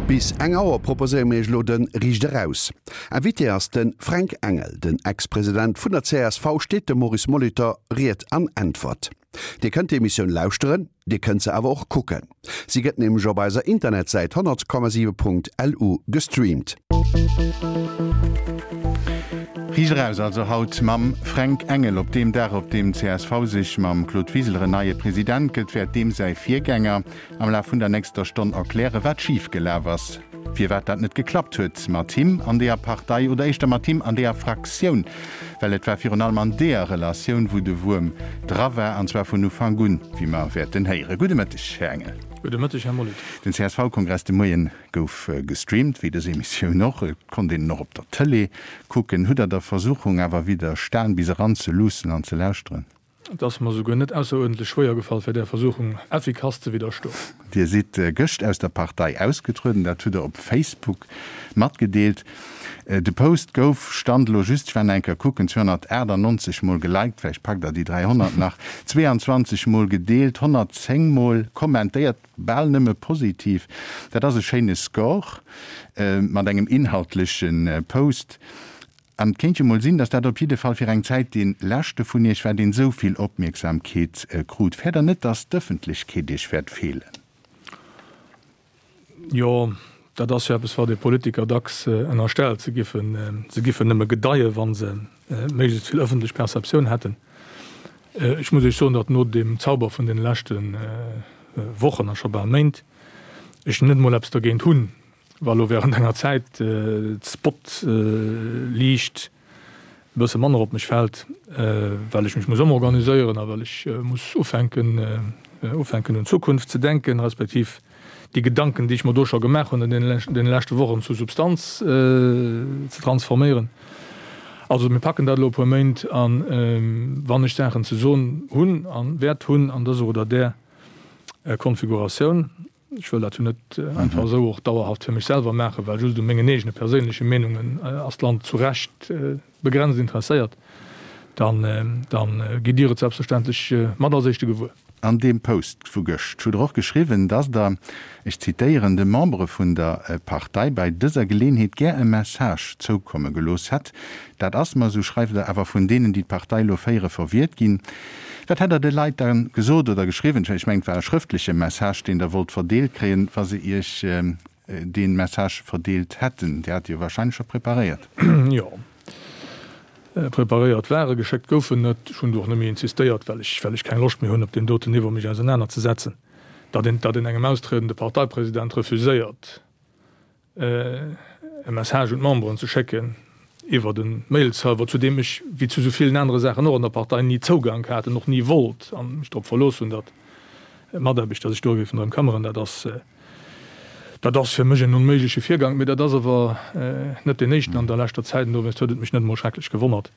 Bis eng Auer proposéiere mir iech elo de Riicht Eraus. Invité ass de Fränk Engel. Den Ex-President vun der csv steet dem Maurice Molitor Ried an Äntwert. Dir kënnt d'Emissioun lauschteren, Dir kënnt se awer och kucken. Si gëtt nämlech op eiser Internetsäit 100,7.lu gestreamt. Riicht eraus also haut mam Fränk Engel. Op deem Dag, op deem csv sech mam Claude Wiseler en neie President gëtt, wäert deem säi Virgänger am Laf vun der nächster Stonn erklären, wat schif gelaf ass, firwat dat net geklappt huet mat him an deeër Partei oder éischter mat him an deeër Fraktioun, well et war virun allem an deeër Relatioun, wou de Wuerm dra war, an zwar vun Ufank un, wéi mer wäerten héieren. Gudde Mëtteg, Här Engel. Gudde Mëtteg, Här Molitor. Den CSV-Kongress de Moien gouf gestreamt, wéi dës Emissioun och. Et konnt een en och op der Tëlee kucken. Hutt Der der Versuchung awer widderstan, bis eran ze luussen an ze lauschteren? Et ass mer souguer net ausseruerdentlech schwéier gefall, fir där Versuchung effikass ze widderstoen. Dir sidd gëscht aus der Partei ausgetrueden, dat hutt Der op Facebook matgedeelt. De Post gouf, Stand elo just, ech war nach eng Kéier kucken, 298 mol geliked, vläicht packt Der déi 300 nach, 22 mol gedeelt, 110 mol kommentéiert, bal nëmme positiv. Dat ass e schéine Score mat engem inhaltleche Post. An et kéint jo mol sinn, datt dat op jidde Fall fir eng Zäit dee leschte vun Iech war, deen esou vill Opmierksamkeet krut. Fäert Der net, datt d'Ëffentlechkeet Iech wäert feelen? Jo, dat ass jo eppes, wat ee Politiker dacks ënnerstellt, se giffen, se giffen nëmme gedeien, wa se méiglechst vill ëffentlech Perceptioun hätten. Ech muss Iech soen, datt no deem Zauber vun deene leschte Wochen a scho bal Méint ech net emol eppes dergéint hunn, Wa lo während enger Zäit d'Spotliicht e bësse manner op mech fält, well ech mech muss ëmorganiséieren a well ech muss ufänken ufänken un d'Zukunft ze denken, respektiv déi Gedanken, déi ech mer do scho gemaach hunn an deene leschte Wochen, zu Substanz ze transforméieren. Also mir packen dat elo e puer Méint an wann ech Saachen ze soen hunn a wäert hunn an dëser oder där Konfiguratioun, Ech wëll dat jo net einfach esou och dauerhaft fir mech selwer maachen, well just u mengen eegene perséinleche Meenungen ass d'Land zu Recht begrenzt interesséiert. Dann, dann gitt Dir et selbstverständlech mat als Éischte gewuer. An deem Post vu gëscht hutt Der och geschriwwen, dass Der, ech zitéieren, de Membere vun der Partei bei dëser Geleenheet gär e Message zoukomme gelooss hätt. Dat ass mer, esou schreift Der, awer vun deenen, déi d'Partei elo féiere, verwiert ginn. Wat hätt Der de Leit da gesot oder geschriwwen? Ech mengen, et war e schrëftleche Message, deen Der wollt verdeelt kréien, wa se Iech dee Message verdeelt hätten. Dir hat e jo wahrscheinlech scho preparéiert. Jo, preparéiert war e, geschéckt gouf en net. Ech hunn do och net méi insistéiert, well ech, well ech keng Loscht méi hunn, op deem doten Niveau mech ausenanerzesetzen. Datt een, datt een engem austriedende Parteipresident refuséiert, e Message un d'Memberen ze schécken iwwert e Mailserver, zu deem ech, wéi zu esou villen anere Saachen och an der Partei, ni Zougank hat an och ni wollt an mech drop verlooss hunn, datt d'Mataarbechter sech do géifen drëm këmmeren. Dat ass, dat ass fir mech en onméigleche Virgank, mee dat ass awer net deen éischten an der leschter Zäit an dowéinst huet et mech net emol schrecklech gewonnert.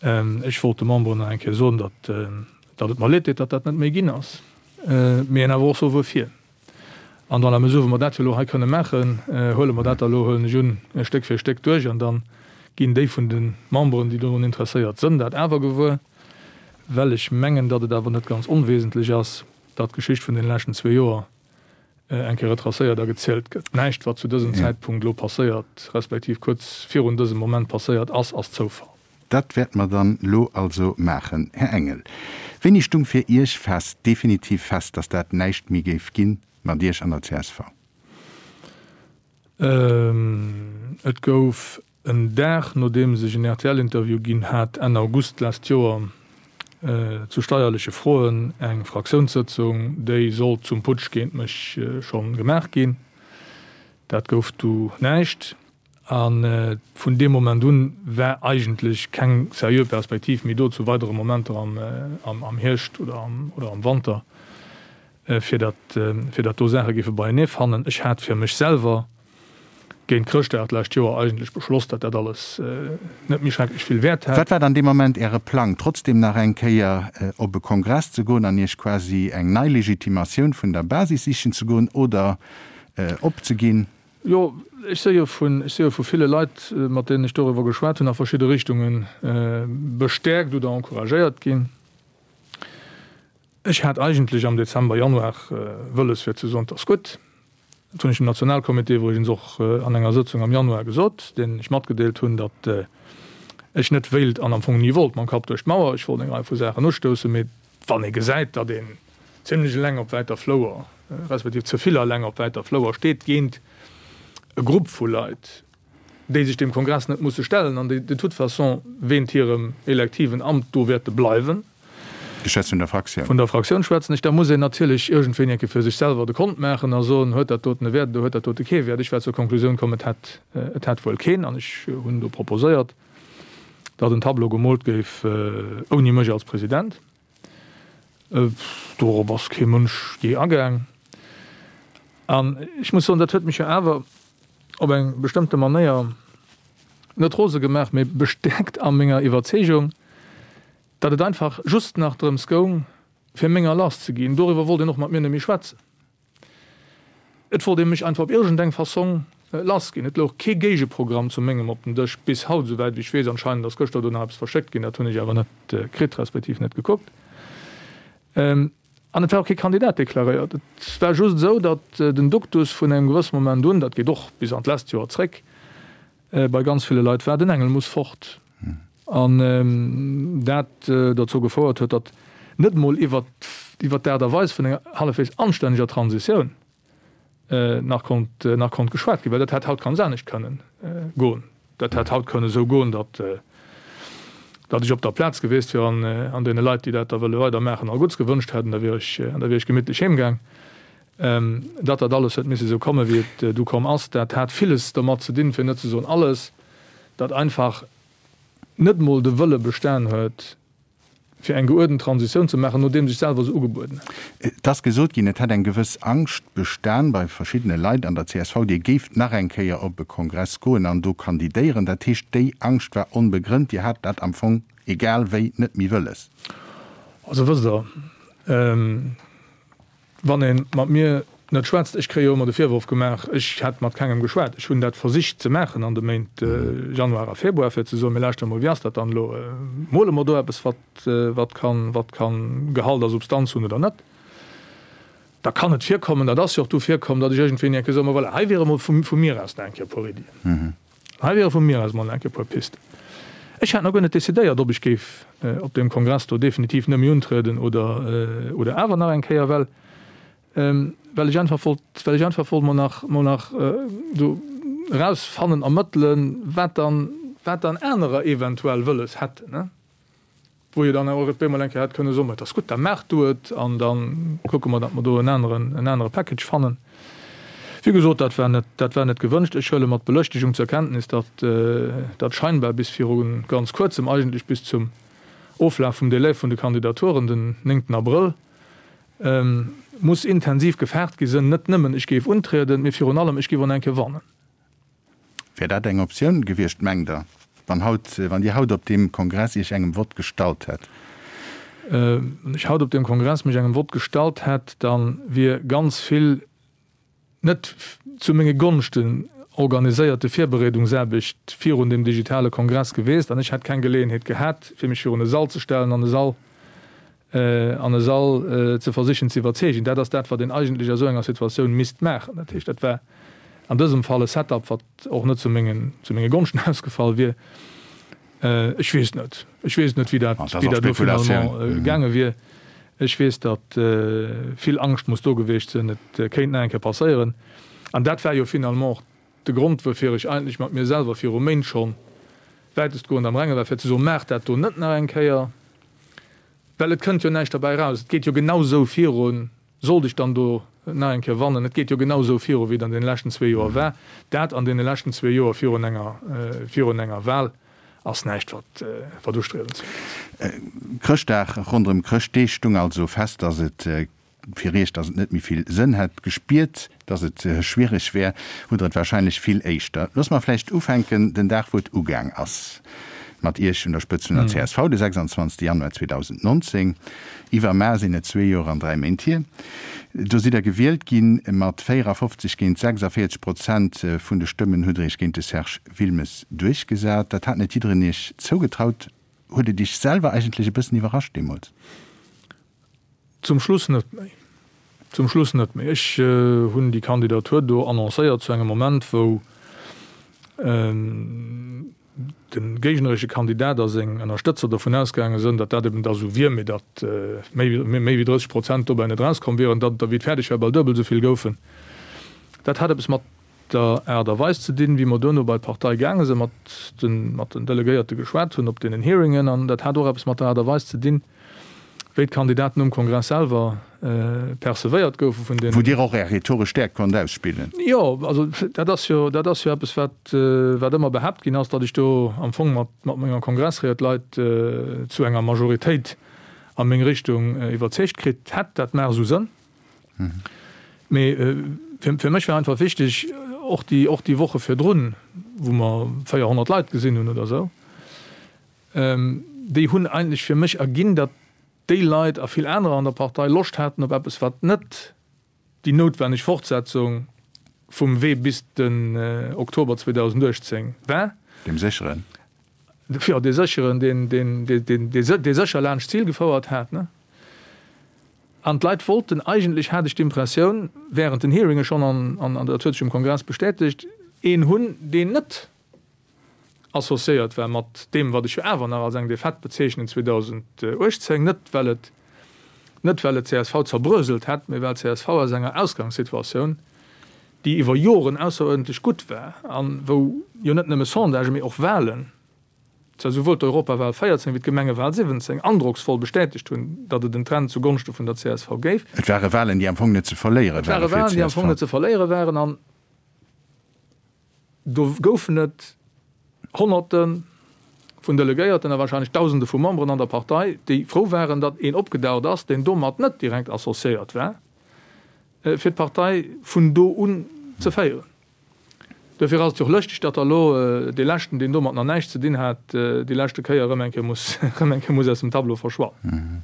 Ech wollt de Memberen nach eng Kéier soen, datt, datt et mer leed deet, datt dat net méi ginn ass, mee awer och soe wuerfir. An dans la mesure wou mer dat jo elo hei kënne maachen, huele mer dat da elo, huelen ech un, Stéck fir Stéck duerch an da ginn déi vun de Memberen, déi dorun interesséiert sënn, dat awer gewuer, well ech mengen, datt et awer net ganz onwesentlech ass, datt d'Geschicht vun deene leschten zwee Joer eng Kéier retracéiert a gezielt gëtt. Näischt, wat zu dësem Zäitpunkt elo passéiert, respektiv kuerz virun dësem Moment passéiert ass, ass Zoufall. Dat wäerte mer dann elo also maachen. Här Engel, wéini stung fir Iech fest, definitiv fest, datt dat näischt méi géif gi mat Iech an der csv? Et gouf en Dag, nodeems ech en RTL-Interview ginn hat, Enn August d'lescht Joer, zu steierleche Froen, eng Fraktiounssëtzung, déi sollt zum Putsch géint mech schonn gemaach ginn. Dat gouf du näischt. A vun deem Moment un war eigentlech keng seriö Perspektiv méi do zu weidere Momenter am Hierscht oder am Wanter, fir datt fir datt do Saache géife beienee fannen. Ech hat fir mech selwer géint Chrëschtdag d'lescht Joer eigentlech beschloss, datt dat alles net méi schrecklech vill Wäert hätt. Wat war dann dee Moment Äre Plang, trotzdem nach eng Kéier op e Kongress ze goen an Iech quasi eng nei Legitimatioun vun der Basis sichen ze goen oder opzeginn? Jo, ech si jo vun, ech si jo vu ville Leit, mat deenen ech doriwwer geschwat hunn, a verschidde Richtunge bestäerkt oder encouragéiert ginn. Ech hat eigentlech am Dezember, Januar wëlles fir ze soen, 't ass gutt. Dat hunn ech dem Nationalcomité iwwregens och an enger Sëtzung am Januar gesot, deenen ech matgedeelt hunn, datt ech net wéilt an am Fong ni wollt mam Kapp duerch d'Mauer. Ech wollt eng Rei vu Saachen ustoussen, mee wann ee gesäit, datt een zimlech eleng op wäiter Flouer, respektiv ze vill eleng op wäiter Flouer steet géint e Grupp vu Leit, déi sech deem Kongress net musse stellen an déi de toute façon wéint hirem elektiven Amt do wäerte bleiwen. Ech schwätze vun der Fraktioun. Vun der Fraktioun schwätzen ech. Da muss een natierlech iergendwéini eng Kéier fir sech selwer de Kont maachen a soen, Huet dat doten e Wäert oder huet dat dote kee Wäert? Ech war zur Konklusioun komm, et hätt, et hätt wuel keen. An ech hunn do proposéiert, datt en Tableau gemoolt géif ouni mech als President. Dorop ass kee Mënsch jee agaang. An ech muss soen, dat huet mech jo awer op eng bestëmmte Manéier net rose gemaach, mee bestäerkt a menger Iwwerzeegung, datt et einfach just nach drëms goung, fir menger lass ze ginn. Doriwwer wollt een och mat mir net méi schwätzen. Et wollt ee mech einfach op iergendeng Fassong lass ginn. Et louch kee Géigeprogramm zu mengem op dem Dësch, bis haut, esouwäit wéi ech weess. Anscheinend ass gëschter do nach eppes verschéckt ginn, dat hunn ech awer net kritt, respektiv net gekuckt. An et war och kee Kandidat deklaréiert. Et war just esou, datt den Duktus vun engem gewësse Moment un, dat geet och bis an d'lescht Joer zréck, bei ganz ville Leit war, den Engel muss fort. An dat dozou gefouert huet, datt net emol iwwer d'Aart a Weis vun enger hallefwegs anstänneger Transitioun nach konnt, nach konnt geschwat ginn, well dat hätt haut ganz anescht kënnen goen. Dat hätt haut kënnen esou goen, datt, datt ech op der Plaz gewiescht wier an, an deene Leit, déi dat da wëlle weidermaachen, all Gutts gewënscht hätt, an da wier ech, an da wier ech gemittlech heemgaang. Datt dat alles huet misse esou komme wéi et du komm ass, dat hat villes domat ze dinn, fir net ze soen alles, datt einfach net emol de Wëlle bestan huet, fir eng geuerdent Transitioun ze maachen, nodeems ech selwer se ugebueden hat. Et ass gesot ginn, et hätt eng gewëss Angscht bestan bei verschiddene Leit an der csv, Dir géift nach eng Kéier op e Kongress goen an do kandidéieren. Dat heescht, déi Angscht war onbegrënnt, Dir hat dat am Fong egal wéi net méi wëlles? Also wësst Der, Wann ee mat mir net schwätzt, ech kréie jo ëmmer de Virworf gemaach, ech hätt mat kengem geschwat. Ech hunn dat versicht ze maachen an de Méint Januar a Februar, fir ze soen, mir lauschteren emol, wéi ass dat dann elo, mole mer do eppes, wat, wat kann, wat kann Gehalt a Substanz hunn oder net. Da kann et virkommen, dat ass jo och du virkomm, datt ech iergendwéini eng Kéier soen, ma voilà, hei wiere mol vu, vu mir aus nach eng Kéier e puer Iddien. Hei wiere vu mir aus mol eng Kéier e puer Pisten. Ech hat nach guer net decidéiert, ob ech géif op deem Kongress do definitiv net méi untrieden oder, oder awer nach eng Kéier, well, well ech einfach wollt, well ech einfach wollt mol nach, mol nach do erausfannen, ermëttelen, wat dann, wat dann anerer eventuell wëlles hätten. Wou jo dann och op eemol eng Kéier hätt kënne soen, Ma et ass gutt, da maach du et an da kucke mer, datt mer do en aneren, en anere Package fannen. Wéi gesot, dat war net, dat war net gewënscht. Ech huele mat Belëschtegung zur Kenntnis, datt dat scheinbar bis viru ganz Kuerzem, eigentlech bis zum Oflaf vum Délai vun de Kandidaturen, den néngten Abrëll, muss intensiv gefaart gi sënn, net nëmmen ech géif untrieden, mee virun allem ech géif och nach eng Kéier wannen. Wär dat eng Optioun gewiescht, mengt Der, wann haut, wann Dir haut op deem Kongress Iech engem Vott gestallt hätt? Wann ech haut op deem Kongress mech engem Vott gestallt hätt, da wier ganz vill net zu menge Gonschten organiséierte Virbereedungsaarbecht virun deem digitale Kongress gewiesst an ech hätt keng Geleeënheet gehat, fir mech virun e Sall ze stellen an e Sall an e Sall ze versichen ze iwwerzeegen. Dat ass dat, wat een eigentlech a sou enger Situatioun misst maachen. Dat heescht, dat war an dësem Fall e Setup, wat och net zu mengen, zu menge Gonschten ausgefall wier. Ech weess net. Ech weess net, wéi dat, wéi dat elo finalement gaange wier. Ech weess, datt vill Angscht muss do gewiescht sinn, et kéint nach eng Kéier passéieren. An dat war jo finalement och de Grond, woufir ech eigentlech mat mir selwer viru Méint schonn wäitestgoend am Renge war, fir ze soen, Maacht dat do net nach eng Kéier. Well et kënnt jo näischt derbäi eraus. Et geet jo genau sou virun, sollt ech dann do nach eng Kéier wannen, et geet jo genau sou viru wéi et an deene leschten zwee Joer war. Dat an deene leschten zwee Joer virun enger, virun enger Wahl ass näischt, wat, wat ustriewenswäert ass. Chrëschtdag, ronderëm Chrëschtdeeg stung also fest, dass et Fir Iech, datt et net méi vill Sënn hätt. Gespiert, datt et schwiereg wär, hutt Der et wahrscheinlech vill éischter. Loosse mer vläicht ufänken den Dag, wou et ugaang ass mat Iech un der Spëtzt vun der csv, de 26 Januar 2019. Iwwermaer sinn et zwee Joer an dräi Méint hier. Do sidd Der gewielt ginn. Mat 54 géint 46 Prozent vun de Stëmmen hutt Der Iech géint de Serge Wilmes duerchgesat. Dat hat net jiddereen Iech zougetraut. Huet et Iech selwer eigentlech e bëssen iwwerrascht deemools? Zum Schluss net méi. Zum Schluss net méi. Ech hunn déi Kandidatur do annoncéiert zu engem Moment, wou de géigneresche Kandidat a seng Ënnerstëtzer dovun ausgaange sënn, datt dat eben da sou wier, mee datt méi wéi 30 Prozent dobäi net erauskomm wieren, datt et der, wéi et fäerdeg war, bal duebel esou vill goufen. Dat hat eppes mat der Aart a Weis ze dinn, wéi mer duerno bei d'Partei gaange sinn, mat den, mat den Delegéierte geschwat hunn op deenen Hearingen. An dat hat och eppes mat der Aart a Weis ze dinn, wéi d'Kandidaten um Kongress selwer percevéiert goufe vun den. Wou Dir och Är rhetoresch Stäerkt konnt ausspillen. Jo, also dat ass jo, dat ass jo eppes, wat, wat ëmmer behaapt ginn ass, datt ech do am Fong mat, mat menger Kongressried d'Leit zu enger Majoritéit a meng Richtung iwwerzeegt kritt hätt. Dat maach esou Sënn. Mee fir mech war einfach wichteg, och déi, och déi Woche virdrun, wou mer 400 Leit gesinn hunn oder esou, déi hunn eigentlech fir mech erginn, datt déi Leit a vill anerer an der Partei Loscht haten op eppes, wat net déi noutwenneg Fortsetzung vum Wee bis den Oktober 2018 war. Deem sécheren. Jo, dee sécheren, deen, deen, deen, dee sécher laanscht d'Zil gefouert hat. An d'Leit wollten eigentlech, hat ech d'Impressioun, während den Hearinge schonn, an an dat huet sech um Kongress bestätegt, een hunn, deen net associéiert war mat deem, wat ech jo awer nach als eng Defaite bezeechnen 2018, net well et, net well et csv zerbröselt hätt, mee well csv aus enger Ausgangssituatioun, déi iwwer Joren ausseruerdentlech gutt war a wou jo net nëmme Sondagen, mee och Wahlen, zwar souwuel d'Europawahl 14 wéi d'Gemengewahl 17 androcksvoll bestätegt hunn, datt et en Trend zu Gonschte vun der csv géif. Et ware Wahlen, déi am Fong net ze verléiere Et ware ware fir Wahlen, déi am Fong net ze verléiere waren an do goufen et Honnerte vun Delegéierten a wahrscheinlech Dausende vu Memberen an der Partei, déi frou waren, datt een opgedaucht ass, deen domat net direkt associéiert war, fir d'Partei vun do un ze féieren. Duerfir ass et jo och lëschteg, datt da elo dee leschten, deen domat nach näischt ze dinn hat, déi leschte Kéier erëm eng Kéier muss, erëm eng Kéier muss aus dem Tableau verschwannen.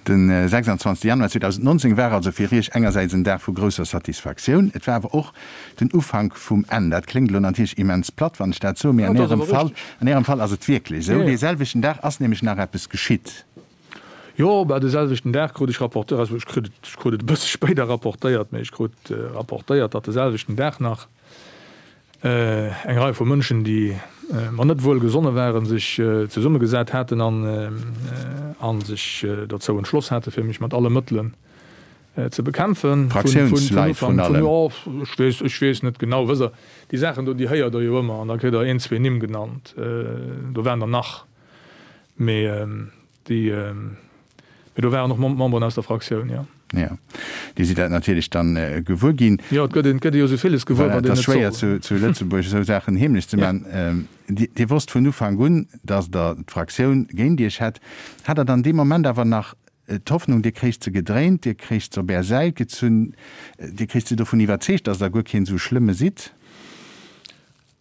De 26 Januar 2019 war also fir Iech engersäits en Dag vu grousser Satisfaktioun, et war awer och den Ufank vum Enn. Dat kléngt elo natierlech immens platt, wann ech dat soen, mee an Ärem Fall, an Ärem Fall ass et wierklech esou. Dee selwechten Dag ass nämlech nach eppes geschitt. Jo, bah, de selwechten Dag krut ech rapportéiert, also ech krut et, ech krut et e bësse spéider rapportéiert, mee ech krut rapportéiert, datt de selwechten Dag nach eng Rei vu Mënschen, déi mer net wuel gesonne waren, sech zesummegesat haten an a sech dozou entschloss hate fir mech mat alle Mëttelen ze bekämpfen. Fraktiounsleit vrun allem. Jo, ech weess, ech weess net genau. Wësst Der, déi Saachen do, déi héiert Der jo ëmmer an da kritt Der een, zwee Nimm genannt. Do waren der nach. Mee déi, mee do waren och Memberen aus der Fraktioun, jo. Jo, déi si dat natierlech dann gewuer ginn. Jo, et gëtt een, et gëtt ee jo esou villes gewuer, wat een net soll. Et ass schwéier zu Lëtzebuerg esou Saachen heemlech ze maachen. Dir wosst vun Ufank un, datt Der d'Fraktioun géint Iech hätt. Hat Der dann dee Moment awer nach d'Hoffnung, Dir kréicht se gedréint, Dir kréicht se op Är Säit gezunn, Dir kréicht se dovun iwwerzeegt, datt Der guer keen esou schlëmme sidd?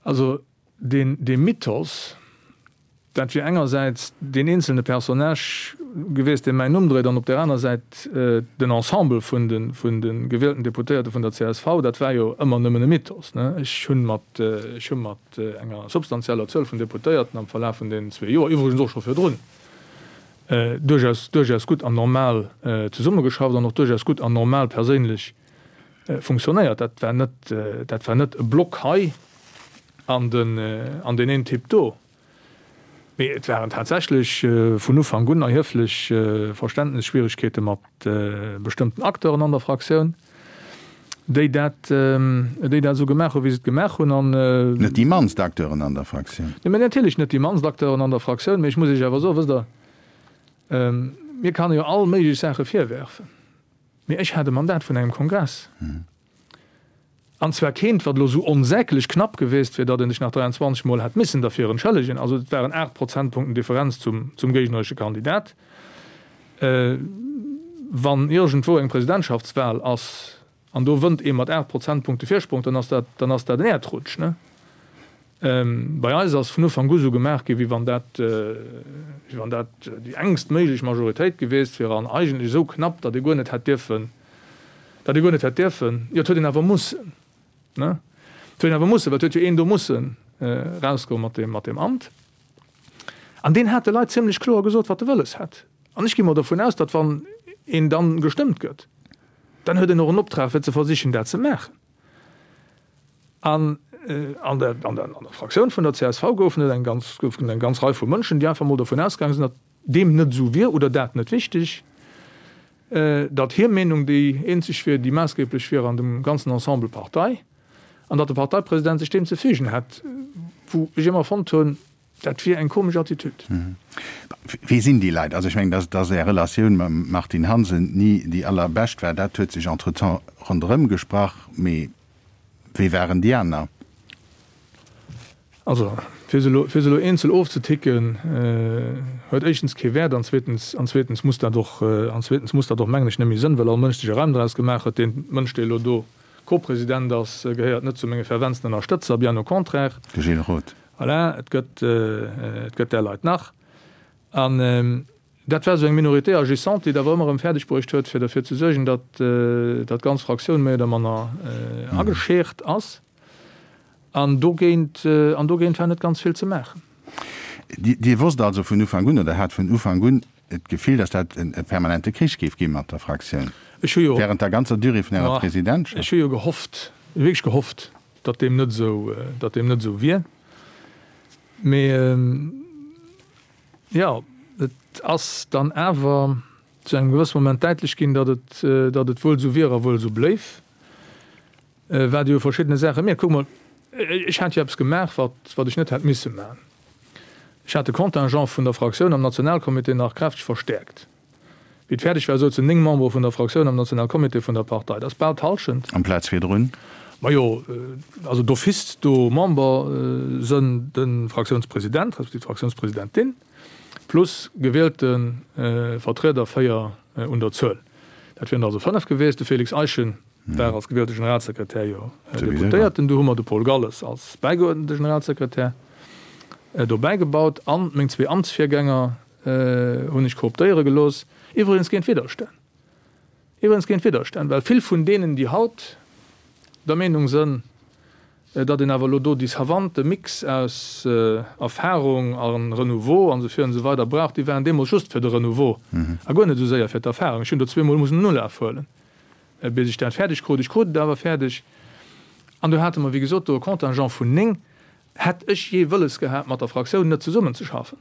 Also deen, dee Mythos, Dat wier engersäits deen eenzelne Personnage gewiesst, dee mäin Numm dréit, an op där aner Säit den Ensemble vun de vun de gewielten Deputéierte vun der csv. Dat war jo ëmmer nëmmen e Mythos, ne? Ech hunn mat, ech hu mat enger substanzieller Zuel vun Deputéierten am Verlaf vun deenen zwee Joer, iwwregens och scho virdrun, duerchaus, duerchaus gutt an normal zesummegeschafft an och duerchaus gutt an normal perséinlech funktionéiert. Dat war net, dat war net e Block hei an den, an deen een Typ do. Mee et waren tatsächlech vun Ufank un erhieflech Verständnisschwierigkeete mat bestëmmten Acteuren an der Fraktioun, déi dat, déi dat esou gemaach hunn, wéi se et gemaach hunn. An. Net déi mannst Acteuren an der Fraktioun. Nee, natierlech net déi mannst Acteuren an der Fraktioun. Mee ech muss Iech awer soen, wësst Der, mir kann e jo all méiglech Saache virwerfen, mee ech hat e Mandat vun engem Kongress. An zwar keent, wat elo esou onsäglech knapp geweest wier, datt een sech nach 23 Mol hätt missen derfir entschëllegen. Also et waren 8 Prozentpunkten Differenz zum, zum géigneresche Kandidat. Wann iergendwou eng Presidentschaftswahl ass an do wënnt ee mat 8 Prozentpunkte Virsprong, dann ass dat, dann ass dat en Äerdrutsch, ne? Bei eis ass vun Ufank u sou gemaach ginn, wéi wann dat, wéi wann dat déi engst méiglech Majoritéit gewiesst wier an eigentlech esou knapp, datt ee guer net hätt dierfen, datt ee guer net hätt dierfen, jo et huet een awer mussen, ne, et huet een awer mussen, well et huet jo een do mussen erausgoe mat deem, mat deem Amt. An deen hat de Leit zimlech kloer gesot, wat e wëlles hätt. An ech gi mol dervun aus, datt wann een dann gestëmmt gëtt. Dann huet en och en Optrag fir ze versichen dat ze maachen. An an der, an der, an der Fraktioun vun der csv goufen et eng ganz, goufen eng ganz Rei vu Mënschen, déi einfach mol dovun ausgaange sinn, datt deem net esou wier oder dat net wichteg, datt hir Meenung déi eenzeg wier, déi maassgeblech wier an dem ganzen Ensemble Partei, an datt de Parteipresident sech deem ze fügen hätt, wou ech ëmmer fonnt hunn, dat wier eng komesch Attitüd. Wie sinn déi Leit? Also ech mengen, datt datt Är Relatioun mam Martine Hansen ni déi allerbescht war, dat huet sech entretemps ronderëm gesprach, mee Wéi waren déi aner? Also, fir se elo, fir se elo eenzel ofzeticken, huet éischtens kee Wäert an zweetens, an zweetens muss dat och, an zweetens muss dat och, mengen ech, net méi sënn, well all Mënsch sech e Reim draus gemaach huet. Deen Mënsch, dee elo do Co-President ass, gehéiert net zu menge ferventsten Ënnerstëtzer, bien au contraire. De Gilles Roth. Voilà, et gëtt, et gëtt där Leit nach. An Dat war esou eng Minorité agissante, déi et awer ëmmer erëm fäerdeg bruecht huet, fir derfir ze suergen, datt datt d'ganz Fraktioun méi oder manner ageschäert ass. An dogéint, an dogéint war net ganz vill ze maachen. Dir wosst also vun Ufank un, oder hat vun Ufank un d'Gefill, datt dat e permanente Krich géif gi mat der Fraktioun Ech hu jo, während der ganzer Durée vun Ärer Presidentschaft? Ech hu jo gehofft, wierklech gehofft, datt deem net esou, datt deem net esou wier. Mee Jo, et ass dann awer zu engem gewësse Moment däitlech ginn, datt et, datt et wuel esou wier a wuel esou bléif, wat ee u verschiddene Saache mierkt. Kuck mol, ech hat jo eppes gemaach, wat, wat ech net hätt misse maachen. Ech hat de Contingent vun der Fraktioun am Nationalcomité nach kräfteg verstäerkt. Wéi et fäerdeg war, souzen 9 Membere vun der Fraktioun am Nationalcomité vun der Partei. Dat ass bal d'Hallschent. Amplaz virdrun? Majo, also d'office do Member sënn de Fraktiounspresident respektiv d'Fraktiounspresidentin plus gewielte Vertrieder, 4 un der Zuel. Dat wieren der also 5 gewiescht. De Félix Eischen war als gewielte Generalsekretär jo Deputéierten. Du hu mer de Paul Galles als bäigeuerdente Generalsekretär dobäi gebaut an meng zwee Amtsvirgänger, hunn ech kooptéiere gelooss, iwwregens géint Widderstänn, iwwregens géint Widderstänn, well vill vun deenen, déi haut der Meenung sënn, datt een awer elo do déi savante Mix aus Erfahrung a Renouveau an esou vir an esou weider brauch, déi waren deemools just fir de Renouveau a guer net esou séier fir d'Erfahrung. Ech hunn do zweemol mussen en Ulaf huelen, bis ech dat fäerdeg krut. Ech krut et awer fäerdeg. An do hate mer, wéi gesot, do e Contingent vun 9. Hätt ech jee wëlles gehat, mat der Fraktioun net zesummenzeschaffen,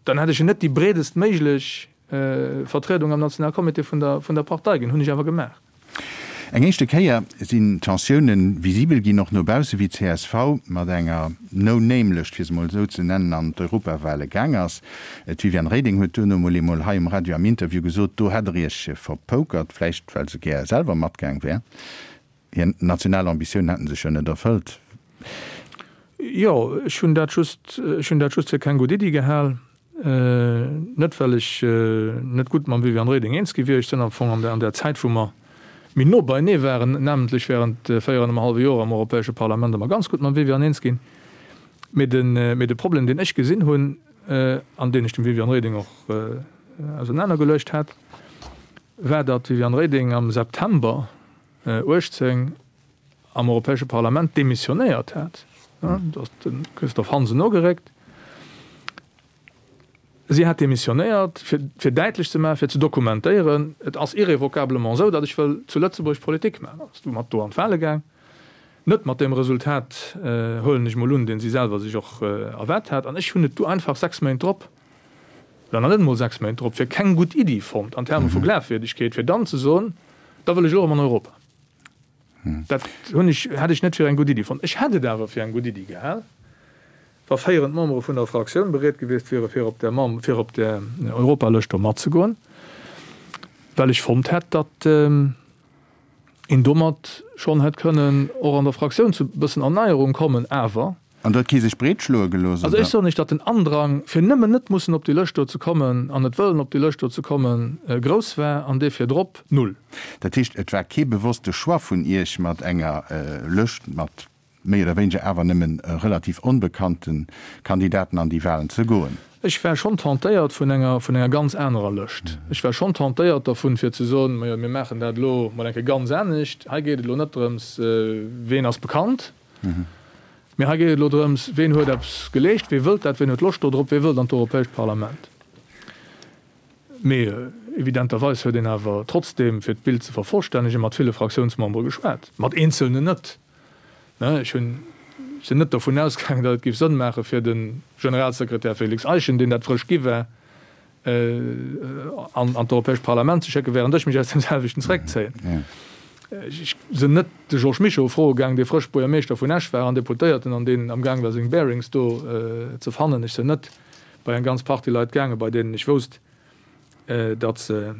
dann hätt ech en net déi breedest méiglech Vertriedung am Nationalcomité vun der, vun der Partei ginn. Hunn ech awer gemaach. Eng éischte Kéier sinn d'Tensiounen visibel ginn, och no bausse, wéi csv mat enger No-Name-Lëscht, fir se mol esou ze nennen, an d'Europawale gaang ass. D'Viviane Reding huet duerno mol eemol hei um Radio am Interview gesot, do hätt der Iech verpokert, vläicht well se gär selwer matgaang wär. Hir national Ambitiounen hätten sech jo net erfëllt. Jo, ech hunn dat just, ech hunn dat just fir keng gutt Iddi gehal. Net well ech net gutt mam Viviane Reding eens gi wier. Ech sinn am Fong an der, an där Zäit wou mer méi no beienee waren, namentlech während 4 an engem hallwe Joer am Europäesche Parlament, ëmmer ganz gutt mam Viviane eens ginn. Mee de, mee de Problem deen ech gesinn hunn, an deen ech dem Viviane Reding och ausenanergeluecht hat, war, datt d'Viviane Reding am September 18 am Europäesche Parlament demissionéiert hat, do ass de Christophe Hansen nogeréckt, si hat demissionéiert, fir, fir däitlech ze maachen, fir ze dokumentéieren, et ass irrévocablement esou, datt ech wëll zu Lëtzebuerg Politik maachen. Ass du mat do an d'Wale gaang, net mat deem Resultat, huelen ech mol un, deen si selwer sech och erwaart hat. An ech hunn et du einfach 6 Méint drop, oder nach net emol 6 Méint drop, fir keng gutt Iddi fonnt an Terme vu Glafwierdegkeet, fir dann ze soen, Da wëll ech elo erëm an Europa. Dat hunn ech, hätt ech net fir eng gutt Iddi fonnt. Ech hätt et awer fir eng gutt Iddi gehal, wa féierend Membere vun der Fraktioun bereet gewiescht wiere fir op där Mem-, fir op där Europalëscht do matzegoen, well ech fonnt hätt, datt een domat schonn hätt kënnen och an der Fraktioun zu e bëssen Erneierung kommen. Awer. An do huet kee sech breet schloe gelooss, oder? Also ech soen Iech, datt den Andrang, fir nëmmen net mussen op déi Lëscht do ze kommen an net wëllen op déi Lëscht do ze kommen, grouss war an dee virdrop null. Dat heescht, et war kee bewosste Choix vun Iech, mat enger Lëscht mat méi oder wéineger awer nëmmen relativ onbekannte Kandidaten an déi Wahlen ze goen? Ech war schonn tentéiert vun enger, vun enger ganz anerer Lëscht. Ech war schonn tentéiert dervun, fir ze soen, Majo, mir maachen dat elo mol eng Kéier ganz anescht. Hei geet et elo net drëms, ween ass bekannt, Mee hei geet et elo drëms, Ween huet eppes geleescht, wee wëllt dat, ween huet Loscht do drop, wee wëllt an d'Europäescht Parlament? Mee Evidenterweis huet een awer trotzdeem, fir d'Bild ze vervollstännegen, mat ville Fraktiounsmembere geschwat, mat eenzelnen net. Ech hunn, sinn net dovun ausgaangen, datt et géif Sënn maache fir de Generalsekretär Félix Eischen, deen dat frësch gi war, an d'Europäescht Parlament ze schécken, während ech mech aus deem selwechten zeréckzéien. Ech sinn net de Georges Mischo froe gaang, dee frësch Buergermeeschter vun Esch war an Deputéierten an deen amgaang war seng Bearings do ze fannen. Ech sinn net bei eng ganz Partie Leit gaangen, bei deenen ech wousst, datt se,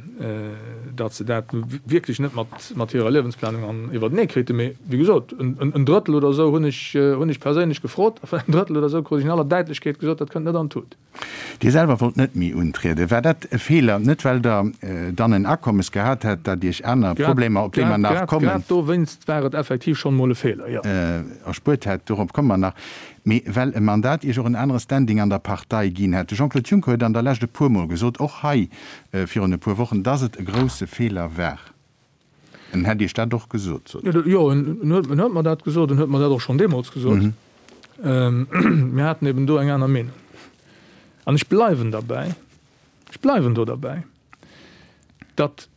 datt se dat nu wierklech net mat, mat hirer Liewensplanung an iwwertenee kriten. Mee wéi gesot, en, en Drëttel oder esou hunn ech, hunn ech perséinlech gefrot a vun engem Drëttel oder esou krut ech in aller Däitlechkeet gesot, dat kënnt net an d'Tut. Dir selwer wollt net méi untrieden. War dat e Feeler? Net well Der dann en Akommes gehat hätt, dat Iech aner Problemer, op déi mer nach kommen. Grad dowéinst war et effektiv schonn emol e Feeler, jo. Erspuert hätt, dorop komme mer nach. Mee well e Mandat Iech och en anere Standing an der Partei ginn hätt. De Jean-Claude Juncker huet an der Lescht e puermol gesot, och hei virun e puer Wochen, dass et e grousse Feeler war. En hätt Iech dat och gesot, sot en. Jo, en huet mer dat gesot. En huet mer dat och schonn deemools gesot. Mir haten eben do eng aner Meenung. An ech bleiwen derbäi, ech bleiwen do derbäi, datt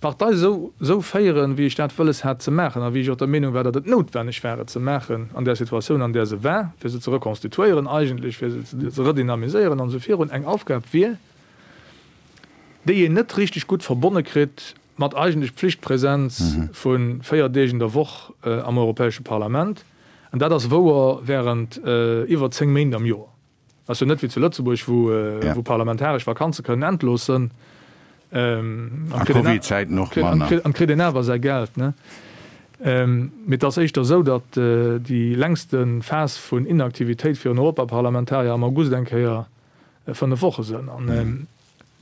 d'Partei esou esou féieren, wéi ech dat wëlles hat ze maachen a wéi ech och der Meenung war, datt et noutwenneg war et ze maachen an där Situatioun, an där se war, fir se ze rekonstituéieren eigentlech, fir se ze redynamiséieren an esou virun, eng Aufgab wier, déi een net richteg gutt verbonne kritt mat eigentlech Pflichtpräsenz vu 4 Deeg in der Woch am Europäesche Parlament. An dat ass wouer während iwwer 10 Méint am Joer. Ass jo net wéi zu Lëtzebuerg, wou parlamentaresch Vakanze kënnen endlos sënn. A Covid-Zäiten och manner. An kritt een awer säi Geld, ne? Mee et ass éischter esou, datt déi längste Phas vun Inaktivitéit fir en Europaparlamentarier am August eng Kéier 5 Woche sënn. An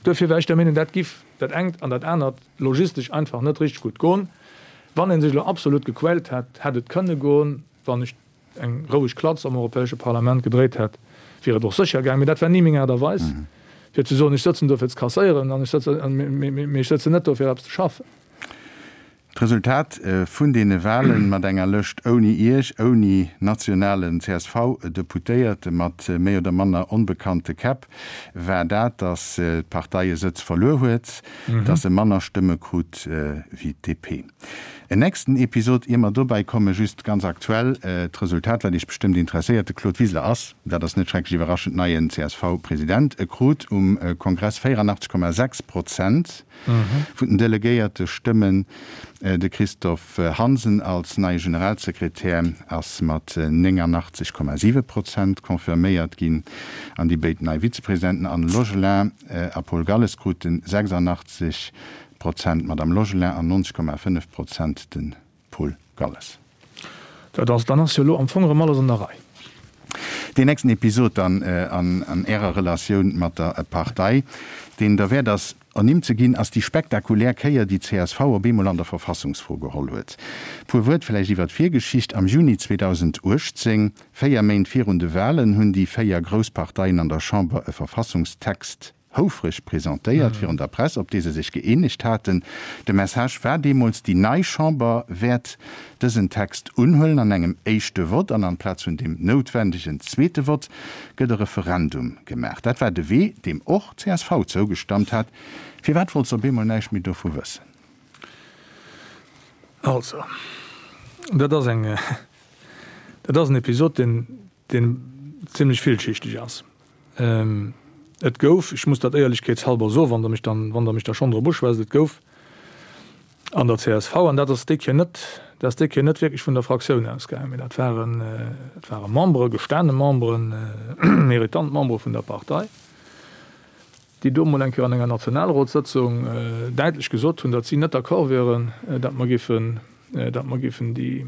duerfir war ech der Meenung, dat giff dat engt an dat anert logistesch einfach net richteg gutt goen. Wann ee sech elo absolut gequält hätt, hätt et kënne goen. Wann ech eng roueg Klatz am Europäesche Parlament gedréit hätt, wier et och sécher gaang. Mee dat war ni meng Aart a Weis, fir ze soen, ech sëtzen do fir ze kasséieren, an ech sëtzen, mee ech sëtzen net do fir eppes ze schaffen. D'Resultat vun deene Wahlen, mat enger Lëscht ouni Iech, ouni nationalen CSV-Deputéierte, mat méi oder manner onbekannte Käpp, war dat, datt d'Partei e Sëtz verluer huet, datt se manner Stëmme krut wéi d'DP. En nächsten Episod, ier mer dobäi kommen, just ganz aktuell d'Resultat, wat Iech bestëmmt interesséiert, De Claude Wiseler ass, dat ass net schrecklech iwwerraschend, neien CSV-President. E krut um Kongress 84,6 Prozent vun den delegéierte Stëmmen. De Christophe Hansen als neie Generalsekretär ass mat 89,7 Prozent confirméiert ginn. An déi béid nei Vizepresidenten Anne Logelin a Paul Galles kruten 86 Prozent d'Madame Logelin an 90,5 Prozent de Paul Galles. Dat ass, dann ass jo elo am Fong erëm alles an der Rei. Deen nächsten Episod dann an Ärer Relatioun mat der Partei, deen derwäert ass ernimmt ze ginn, ass déi spektakulär Kéier, déi csv op eemol an der Verfassungsfro geholl huet. Puer Wuert vläicht iwwer d'Virgeschicht, Am Juni 2018, véier Méint virun de Wahlen, hunn déi véier grouss Parteien an der Chamber e Verfassungstext houfreg presentéiert virun der Press, op dee se sech gëeenegt haten. De Message war deemools, déi nei Chamber wäert dësen Text unhuelen an engem éischte Vott an amplaz vun deem noutwendegen zweete Vott gëtt e Referendum gemaach. Dat war de Wee, deem och csv zougestammt hat. Firwat wollt se op eemol näischt méi dovu wëssen? Also, dat ass eng, dat ass en Episod, deen, deen zimlech villschichteg ass. Et gouf, ech muss dat éierlechkeetshalber soen, wann Der mech dann, wann Der mech da schonn drop uschwätzt, et gouf an der csv, an dat ass déi Kéier net, dat ass déi Kéier net wierklech vun der Fraktioun ausgaangen, mee dat waren, dat ware Membere, gestane Memberen, méritant Membere vun der Partei, déi do emol eng Kéier an enger Nationalrotssëtzung däitlech gesot hunn, datt si net d'accord wieren, datt mer géifen, datt mer géifen déi,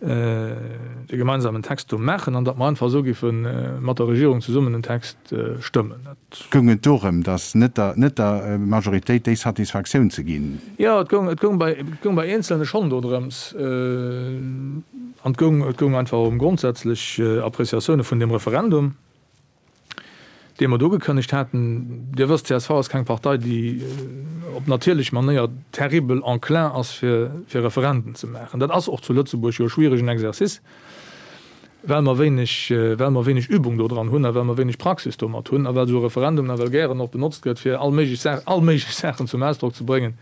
de gemeinsamen Text do maachen an datt mer einfach esou géife mat der Regierung zesummen en Text stëmmen. Dat. Goung et dorëm, datt net der, net der Majoritéit déi Satisfaktioun ze ginn? Jo, et goung, et goung bei, et goung bei Eenzelne schonn dodrëms. An et goung, et goung einfach ëm grondsätzlech Appréciatioune vun deem Referendum. dee mer do ugekënnegt haten. Dir wësst, csv ass keng Partei, déi op natierlech Manéier terribel enclin ass, fir Referenden ze maachen. Dat ass och zu Lëtzebuerg jo e schwieregen Exercice. Well mer wéineg, well mer wéineg Übung do dran hunn a well mer wéineg Praxis domat hunn a well esou e Referendum nawell gären och benotzt gëtt, fir all méiglech Saach, all méiglech Saachen zum Ausdrock ze bréngen,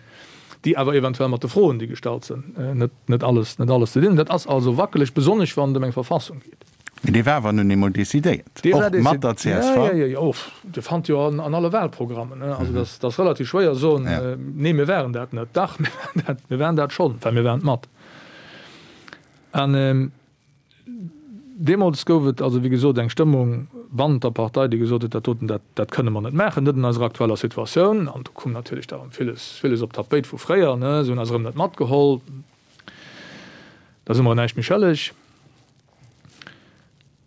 déi awer eventuell mat de Froen, déi gestallt sinn, net, net alles, net alles ze dinn hunn. Dat ass also wackeleg, besonnesch wann et ëm eng Verfassung geet. Mee dee war awer nun eemol decidéiert, och mat der csv. Jo, jo, jo, Dir fannt jo an alle Wahlprogrammen. Also dat ass relativ schwéier soen, nee mir waren dat net. Dach, mir waren dat, mir waren dat schonn, well mir waren et mat. An deemools gouf et also, wéi gesot, eng Stëmmung bannent der Partei, déi gesot huet, dat doten, dat, dat kënne mer net maachen, net an eiser aktueller Situatioun. An do koum natierlech da erëm villes, villes op d'Tapéit vu fréier, ne, se hunn eis erëm net matgeholl, da si mer näischt méi schëlleg.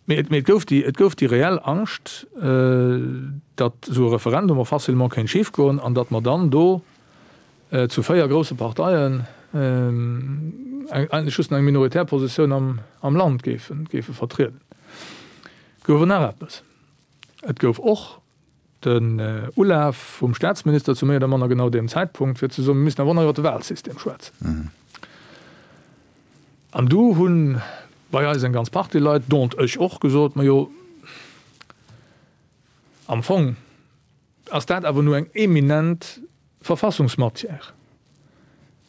Mee et, mee et gouf déi, et gouf déi reell Angscht, datt esou e Referendum och facilement kéint schifgoen an datt mer dann do zu 4 grousse Parteien eigentlech just nach eng minoritär Positioun am, am Land géifen, géife vertrieden. Et gouf awer nach eppes, Et gouf och den Ulaf vum Staatsminister zu méi oder manner genau deem Zäitpunkt, fir ze soen, mir müssen awer och nach iwwer de Wahlsystem schwätzen. An du hu bei eis eng ganz Partie Leit, dont ech och, gesot, Majo, am Fong ass dat awer nu eng eminent Verfassungsmatière.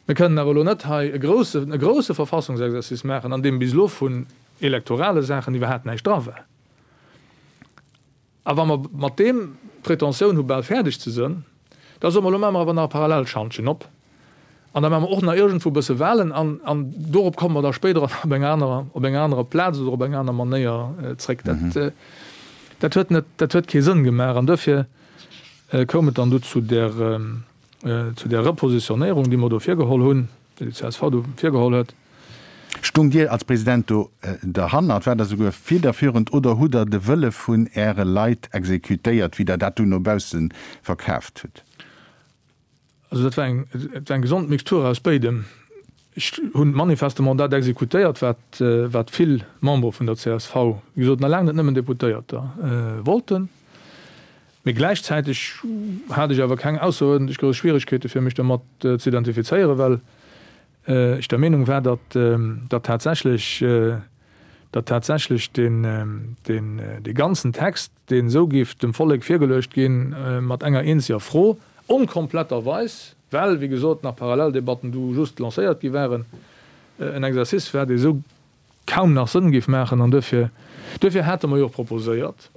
Mir kënnen awer elo net hei e grousse, e grousse Verfassungsexercice maachen, an deem bis elo vun elektorale Saachen iwwerhaapt näischt dra war. A wa mer mat deem d'Pretentioun hu bal fäerdeg ze sënn, da soe mer, elo maache mer awer nach e Parallelschantjen op an da maache mer och nach iergendwou e bësse Wahlen an, an dorop komme mer da spéider op enger anerer, op enger anerer Plaz oder op eng aner Manéier zréck. Dat, dat huet net, dat huet kee Sënn gemaach an duerfir koum et dann du zu där, zu där Repositionéierung, déi mer do virgeholl hunn, déi déi csv do virgeholl huet. Stungt Dir als President do derhannert? Waart Der souguer fiederführend oder hutt Der de Wëlle vun Äre Leit exekutéiert, wéi Der dat dunn no bausse verkaaft hutt? Also dat war eng, et war eng gesond Mixtur aus béidem. Ech hunn manifestement dat exekutéiert, wat, wat vill Membere vun der csv, wéi gesot, nach laang net nëmmen Deputéierter, wollten. Mee gläichzäiteg hat ech awer keng ausseruerdentlech grouss Schwieregkeete fir mech domat ze identifizéieren, well ech der Meenung war, datt, datt tatsächlech, datt tatsächlech deen, deen, dee ganzen Text, deen esou géif dem Vollek virgeluecht ginn, mat enger eenzeger Fro, onkompletterweis, well, wéi gesot, nach Paralleldebatten du just lancéiert gi waren, en Exercice war, dee esou kaum nach Sënn géif maachen. An duerfir, duerfir hate mer jo och proposéiert,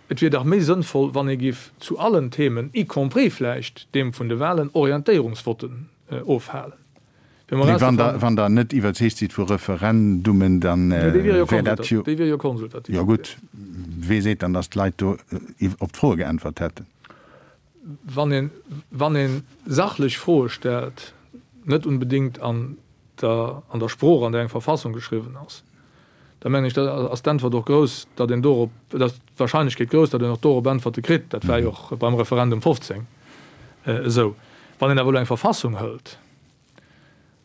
et wier dach méi sënnvoll, wann ee géif zu allen Themen, y compris vläicht deem vun de Wahlen, Orientéierungsvotten ofhalen. Mee wann Der net iwwerzeegt sidd vu Referendummen, da wär dat jo. Déi wier jo konsultativ. Jo gutt, wee seet dann, datt d'Leit do op d'Froe geäntwert hätten? Wann een, wann ee sachlech Froe stellt, net unbedéngt an der, an der Sprooch, an där eng Verfassung geschriwwen ass, da mengen ech, da ass d'Äntwert och grouss, datt een dorop, da ass d'Wahrscheinlechkeet grouss, datt een och dorop Äntwerte kritt. Dat war jo och beim Referendum 15 esou. Wann een awer elo eng Verfassung hëlt,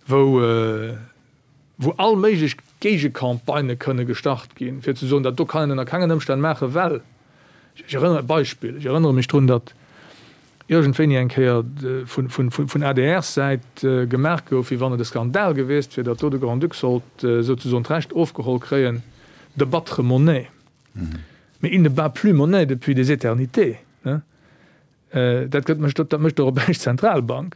wou, wou all méiglech Géigecampagnë kënne gestart ginn, fir ze soen, dat do kann een ënner kengen Ëmstänn maachen, well, ech erënnere, Beispill, ech erënnere mech drun, datt iergendwéini eng Kéier vun, vun, vun ADR-Säit gemaach gouf, wéi wann et e Skandal gewiesst wier, datt do de Grand-Duc sollt souzesoen d'Recht ofgeholl kréien de battre monnaie. Mais il ne bat plus monnaie depuis des éternités. Dat gëtt mécht, dat mécht d'Europäesch Zentralbank.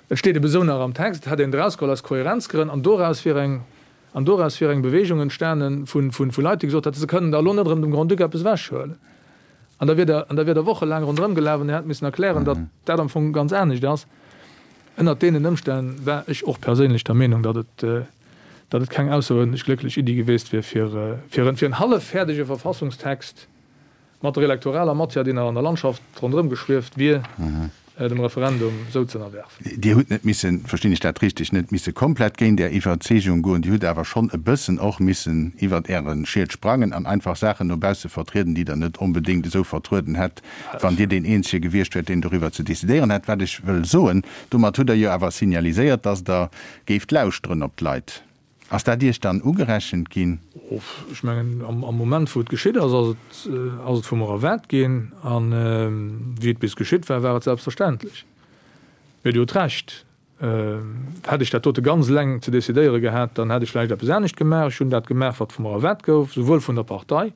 Et steet ebe sou nach am Text, et hätt een et erausgeholl aus Kohärenzgrënn an doraus wier eng, an doraus wier eng Bewegung entstanen vu, vu, vu Leit, déi gesot hätten, se kënnen da elo net erëm dem Grand-Duc eppes ewechhuelen. An da wier der, an da wier der wochelaang ronderëm gelaf an Dir hätt missen erklären, datt dat am Fong ganz anescht ass. Ënnert deenen Ëmstänn war ech och perséinlech der Meenung, datt et, datt et keng ausseruerdentlech glécklech Iddi geweest wier, fir, fir en, fir en halleffäerdege Verfassungstext, Mat der elektoraler Matière, déi nach an der Landschaft ronderëm geschwieft wier, dem Referendum sou ze ënnerwerfen. Dir hutt net missen, verstinn ech dat richteg, net misse komplett géint Är Iwwerzeegung goen, Dir hutt awer schonn e bëssen och missen iwwert Äre Schiet sprangen an einfach Saachen no bausse vertrieden, déi Der net onbedéngt esou vertrueden hätt, wann Dir deen Eenzege gewiescht wäert, deen doriwwer ze decidéieren hätt. Wat ech wëll soen, domat hutt Der jo awer signaliséiert, dass Der géift lauschteren op d'Leit. Ass dat Iech dann ugerechent ginn? Ech mengen, am Moment, wou et geschitt ass, ass et, ass et vu mer erwaart ginn. A wéi et bis geschitt war, war et selbstverständlech. Mee Dir hutt Recht. Hätt ech dat dote ganz eleng ze decidéiere gehat, dann hätt ech vläicht eppes anescht gemaach. Ech hunn dat gemaach, wat vu mer erwaart gouf, souwuel vun der Partei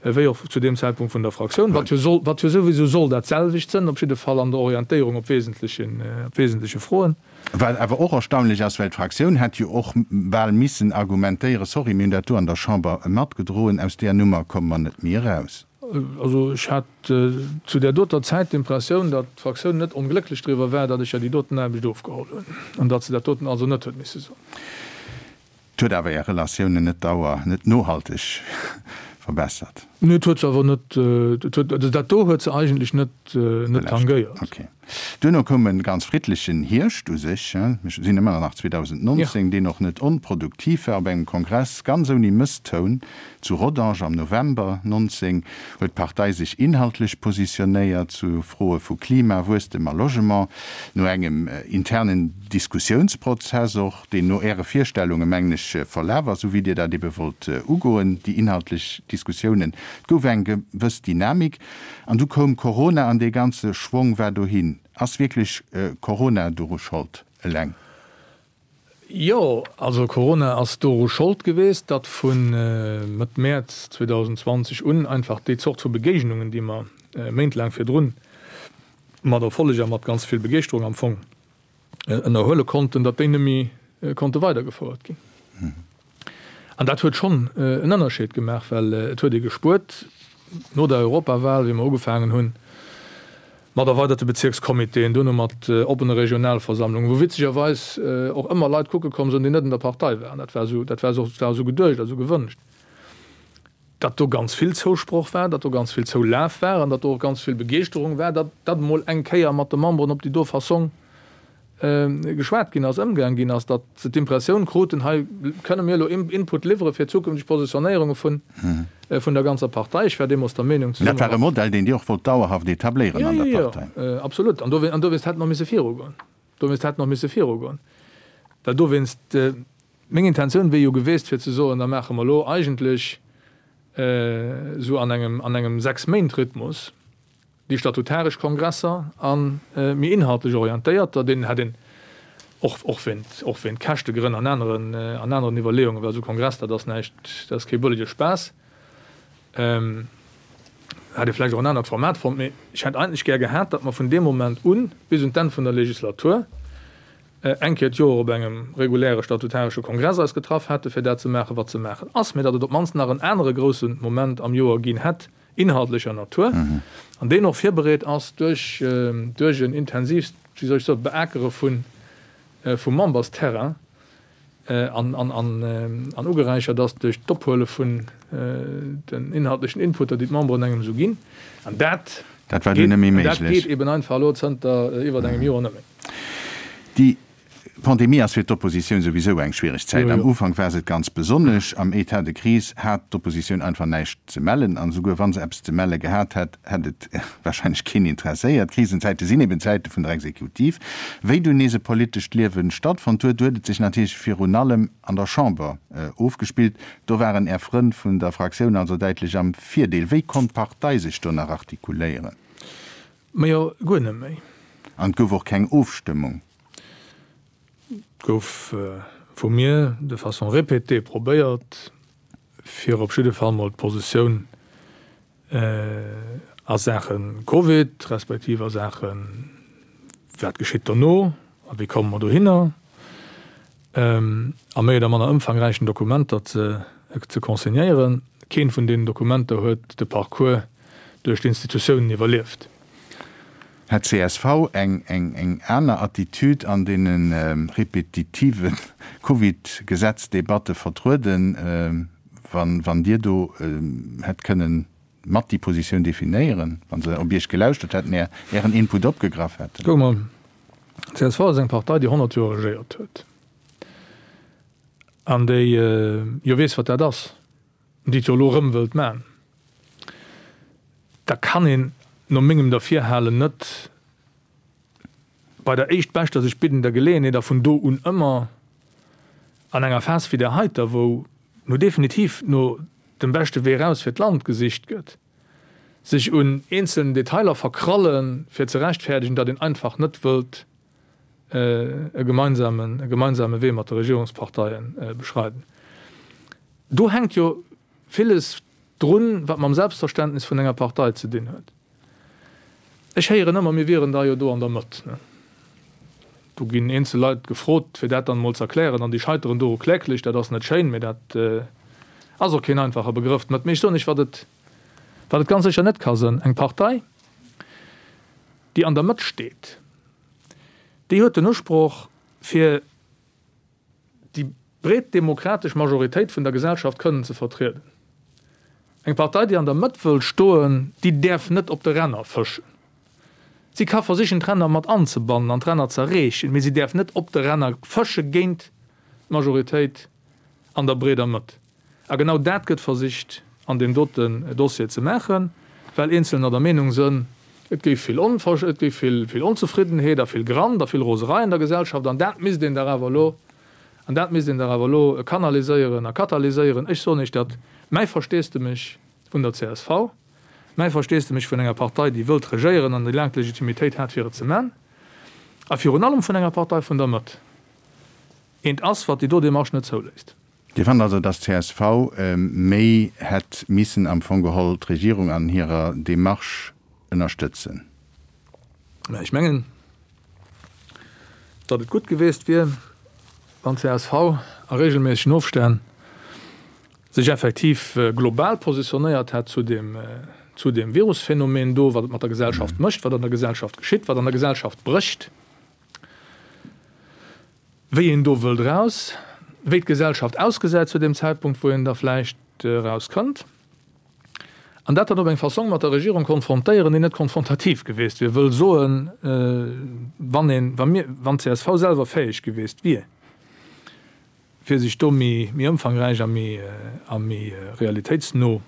wéi och zu deem Zäitpunkt vun der Fraktioun, wat jo soll, wat jo souwisou soll dat selwecht sënn, op jidde Fall an der Orientéierung op wesentlechen, op wesentleche Froen. Wat awer och erstaunlech ass, well d'Fraktioun hätt jo och bal missen argumentéieren, sorry, mir hunn dat do an der Chamber matgedroen, aus där Nummer komme mer net méi eraus. Also ech hat zu där doter Zäit d'Impressioun, datt d'Fraktioun net onglécklech driwwer war, datt ech der déi doten Aarbecht ofgeholl hunn an datt se dat doten also net huet misse soen. Et huet awer Är Relatiounen net dauer, net nohalteg verbessert. Nee, et huet se awer net, et huet, also dat do huet se eigentlech net, net tangéiert. Ok. Duerno koum e ganz friddlechen Hierscht u sech, mir sinn ëmmer nach 2019, deen och net onproduktiv war. Op engem Kongress ganz ouni Mësstoun zu Rodange am November 19 huet d'Partei sech inhaltlech positionéiert zu Froe vu Klima, Wuesstem a Logement. No engem internen Diskussiounsprozess och, deen no Äre Virstellunge, mengen ech, verlaf ass, esou wéi Dir dat ebe wollt ugoen, déi inhaltlech Diskussiounen. Et gouf eng gewëss Dynamik. An du koum Corona an dee ganze Schwong war dohin. Ass wierklech Corona doru Schold eleng? Jo, also Corona ass doru Schold geweest, datt vu Mëtt Mäerz 2020 un einfach déi Zort vu Begéignungen, déi mer méintlaang virdrun mat Erfolleg a mat ganz vill Begeeschterung am Fong ënnerhuele konnten, datt déi net méi konnte weidergefouert ginn. An dat huet schonn en Ënnerscheed gemaach, well et huet ee gespuert, no der Europawal, wéi mer ugefaangen hunn mat erweiderte Bezierkscomitéen, duerno mat oppene Regionalversammlungen, wou witzegerweis och ëmmer Leit kucke komm sinn, déi net an der Partei waren, dat war esou, dat war esou geduecht a esou gewënscht, datt do ganz vill Zousproch war, datt do ganz vill Zoulaf war an datt do och ganz vill Begeeschterung war, datt dat emol eng Kéier mat de Memberen op déi do Fassong geschwat ginn ass, ëmgaang ginn ass, datt se d'Impressioun kruten, hei kënne mir elo Input liwwere fir zukünfteg Positionéierunge vun vun der ganzer Partei. Ech war deemools der Meenung, zesumme mat. Dat war e Modell, deen Dir och wollt dauerhaft etabléieren an der Partei. Jo, jo, jo, absolut. An dowéinst hätt en och misse virugoen. Dowéinst hätt en och misse virugoen, well dowéinst, Meng Intentioun wier jo geweest fir ze soen, da maache mer elo eigentlech esou an engem an engem Sechs-Méint-Rhythmus déi statutaresch Kongresser a méi inhaltlech orientéierter, deenen hätt een och och wéint och wéint Käschtegrënn an aneren an aneren Iwwerleeungen, well esou Kongress dat ass näischt, dat ass kee bëllege Spaass, hätt ee vläicht och en anert Format fonnt. Mee ech hätt eigentlech gär gehat, datt mer vun deem Moment un bis un d'Enn vun der Legislatur eng Kéier d'Joer op engem reguläre statutaresche Kongress eis getraff hätte fir dat ze maachen, wat ze maachen ass, mä datt et op d'mannst nach en anere grousse Moment am Joer ginn hätt, inhaltlecher Natur, an deen och virbereet ass duerch duerch en intensiivst, wéi soll ech soen, Beakere vun vum Membersterrain an an an ugeräichert ass duerch d'Ophuele vun den inhaltlechen Inputter, déi d'Memberen engem esou ginn. An dat Dat war dunn net méi méiglech. Dat geet eben einfach elo zënter iwwert engem Joer net méi. Déi Pandemie ass fir d'Oppositioun souwisou eng schwiereg Zäit. Am Ufank war se et ganz besonnesch. Am Etat de crise hat d'Oppositioun einfach näischt ze mellen. An esouguer wa se eppes ze melle gehat hätt, hätt et warscheinlech keen interesséiert. Krisenzäite sinn eben Zäite vun der Exekutiv. Wéi dunn nees e politescht Liewe stattfonnt huet, huet et sech natierlech virun allem an der Chamber ofgespillt. Do waren Är Frënn vun der Fraktioun also däitlech am Virdeel. Wéi konnt d'Partei sech do nach artikuléieren? Majo, guer net méi. An et gouf och keng Ofstëmmung? Et gouf vu mir de façon répétée probéiert, fir op jidde Fall mol d'Positioun a Saache Covid, respektiv a Saache wat geschitt dono a wéi komme mer dohinner, a méi oder manner ëmfangräichen Dokumenter ze consignéieren. Keent vun deenen Dokumenter huet de Parcours duerch d'Institutiounen iwwerlieft. Hätt csv eng aner Attitude an deene repetitive Covid-Gesetzdebatte vertrueden, wann Dir do hätt kënnen mat déi Positioun definéieren, wa se op Iech gelauschtert hätten, Ären Input opgegraff hätten? Kuck mol, csv ass eng Partei, déi 100 Joer regéiert huet an déi jo weess, wat dat ass, déi et jo elo erëm wëllt man. Da kann een no mengem Derfirhalen net bei der éischtbeschter sech biddender Geleeënheet a vun do un ëmmer an enger Phas wéi där heiter, wou no definitiv no dem beschte Wee eraus fir d'Land gesicht gëtt, sech un eenzelnen Detailer verkrallen, fir ze rechtfäerdegen, datt een einfach net wëllt. e gemeinsamen, e gemeinsame Wee mat de Regierungsparteie beschreiden. Do hänkt jo villes drun, wat mam Selbstverständnis vun enger Partei ze dinn huet. Ech héieren ëmmer, mir wieren da jo do an der Mëtt. Do ginn eenzel Leit gefrot, fir dat dann emol ze erklären, an déi scheiteren doru kläglech. Dat ass net schéin, mee dat ass och keen einfache Begrëff, d'Mëtt. Mee ech soen Iech, wat et, wat et ganz sécher net ka sënn, Eng Partei, déi an der Mëtt steet, déi huet den Usproch, fir déi breet demokratesch Majoritéit vun der Gesellschaft kënnen ze vertrieden. Eng Partei, déi an der Mëtt wëll stoen, déi däerf net op de Ränner fëschen. Si ka versichen, d'Ränner mat anzebannen an d'Ränner z'erreechen, mee si däerf net op de Ränner fësche géint d'Majoritéit an der breeder Mëtt. A genau dat gëtt versicht an deem doten Dossier ze maachen, well Eenzelner der Meenung sënn, et géif vill Onver-, et géif vill, vill Onzefriddenheet a vill Grant a vill Roserei an der Gesellschaft an dat misst een dach awer elo, an dat misst een dach awer elo kanaliséieren a katalyséieren. Ech soen Iech dat, mäi Versteesdemech vun der csv, mäi Versteesdemech vun enger Partei, déi wëllt regéieren an déi laang d'Legitimitéit hat fir et ze man, a virun allem vun enger Partei vun der Mëtt, eent ass, wat déi do Démarche net zouléisst. Dir fannt also, dass csv méi hätt missen am Fong geholl d'Regierung an hirer Démarche ënnerstëtzen? Mä ech mengen, datt et gutt geweest wier, wann csv a regelméissegen Ofstänn sech effektiv global positionéiert hätt zu deem, zu deem Virusphänomen do, wat et mat der Gesellschaft mécht, wat an der Gesellschaft geschitt, wat an der Gesellschaft brécht. Wéi een do wëllt eraus, wéi d'Gesellschaft ausgesäit zu deem Zäitpunkt, wou een da vläicht erauskënnt, an dat dann op eng Fassong mat der Regierung konfrontéieren, déi net konfrontativ geweest wier, wëll soen, wann een, wa mir, wann d'CSV selwer fäeg geweest wier, fir sech do méi, méi ëmfangräich a méi, a méi realitéitsno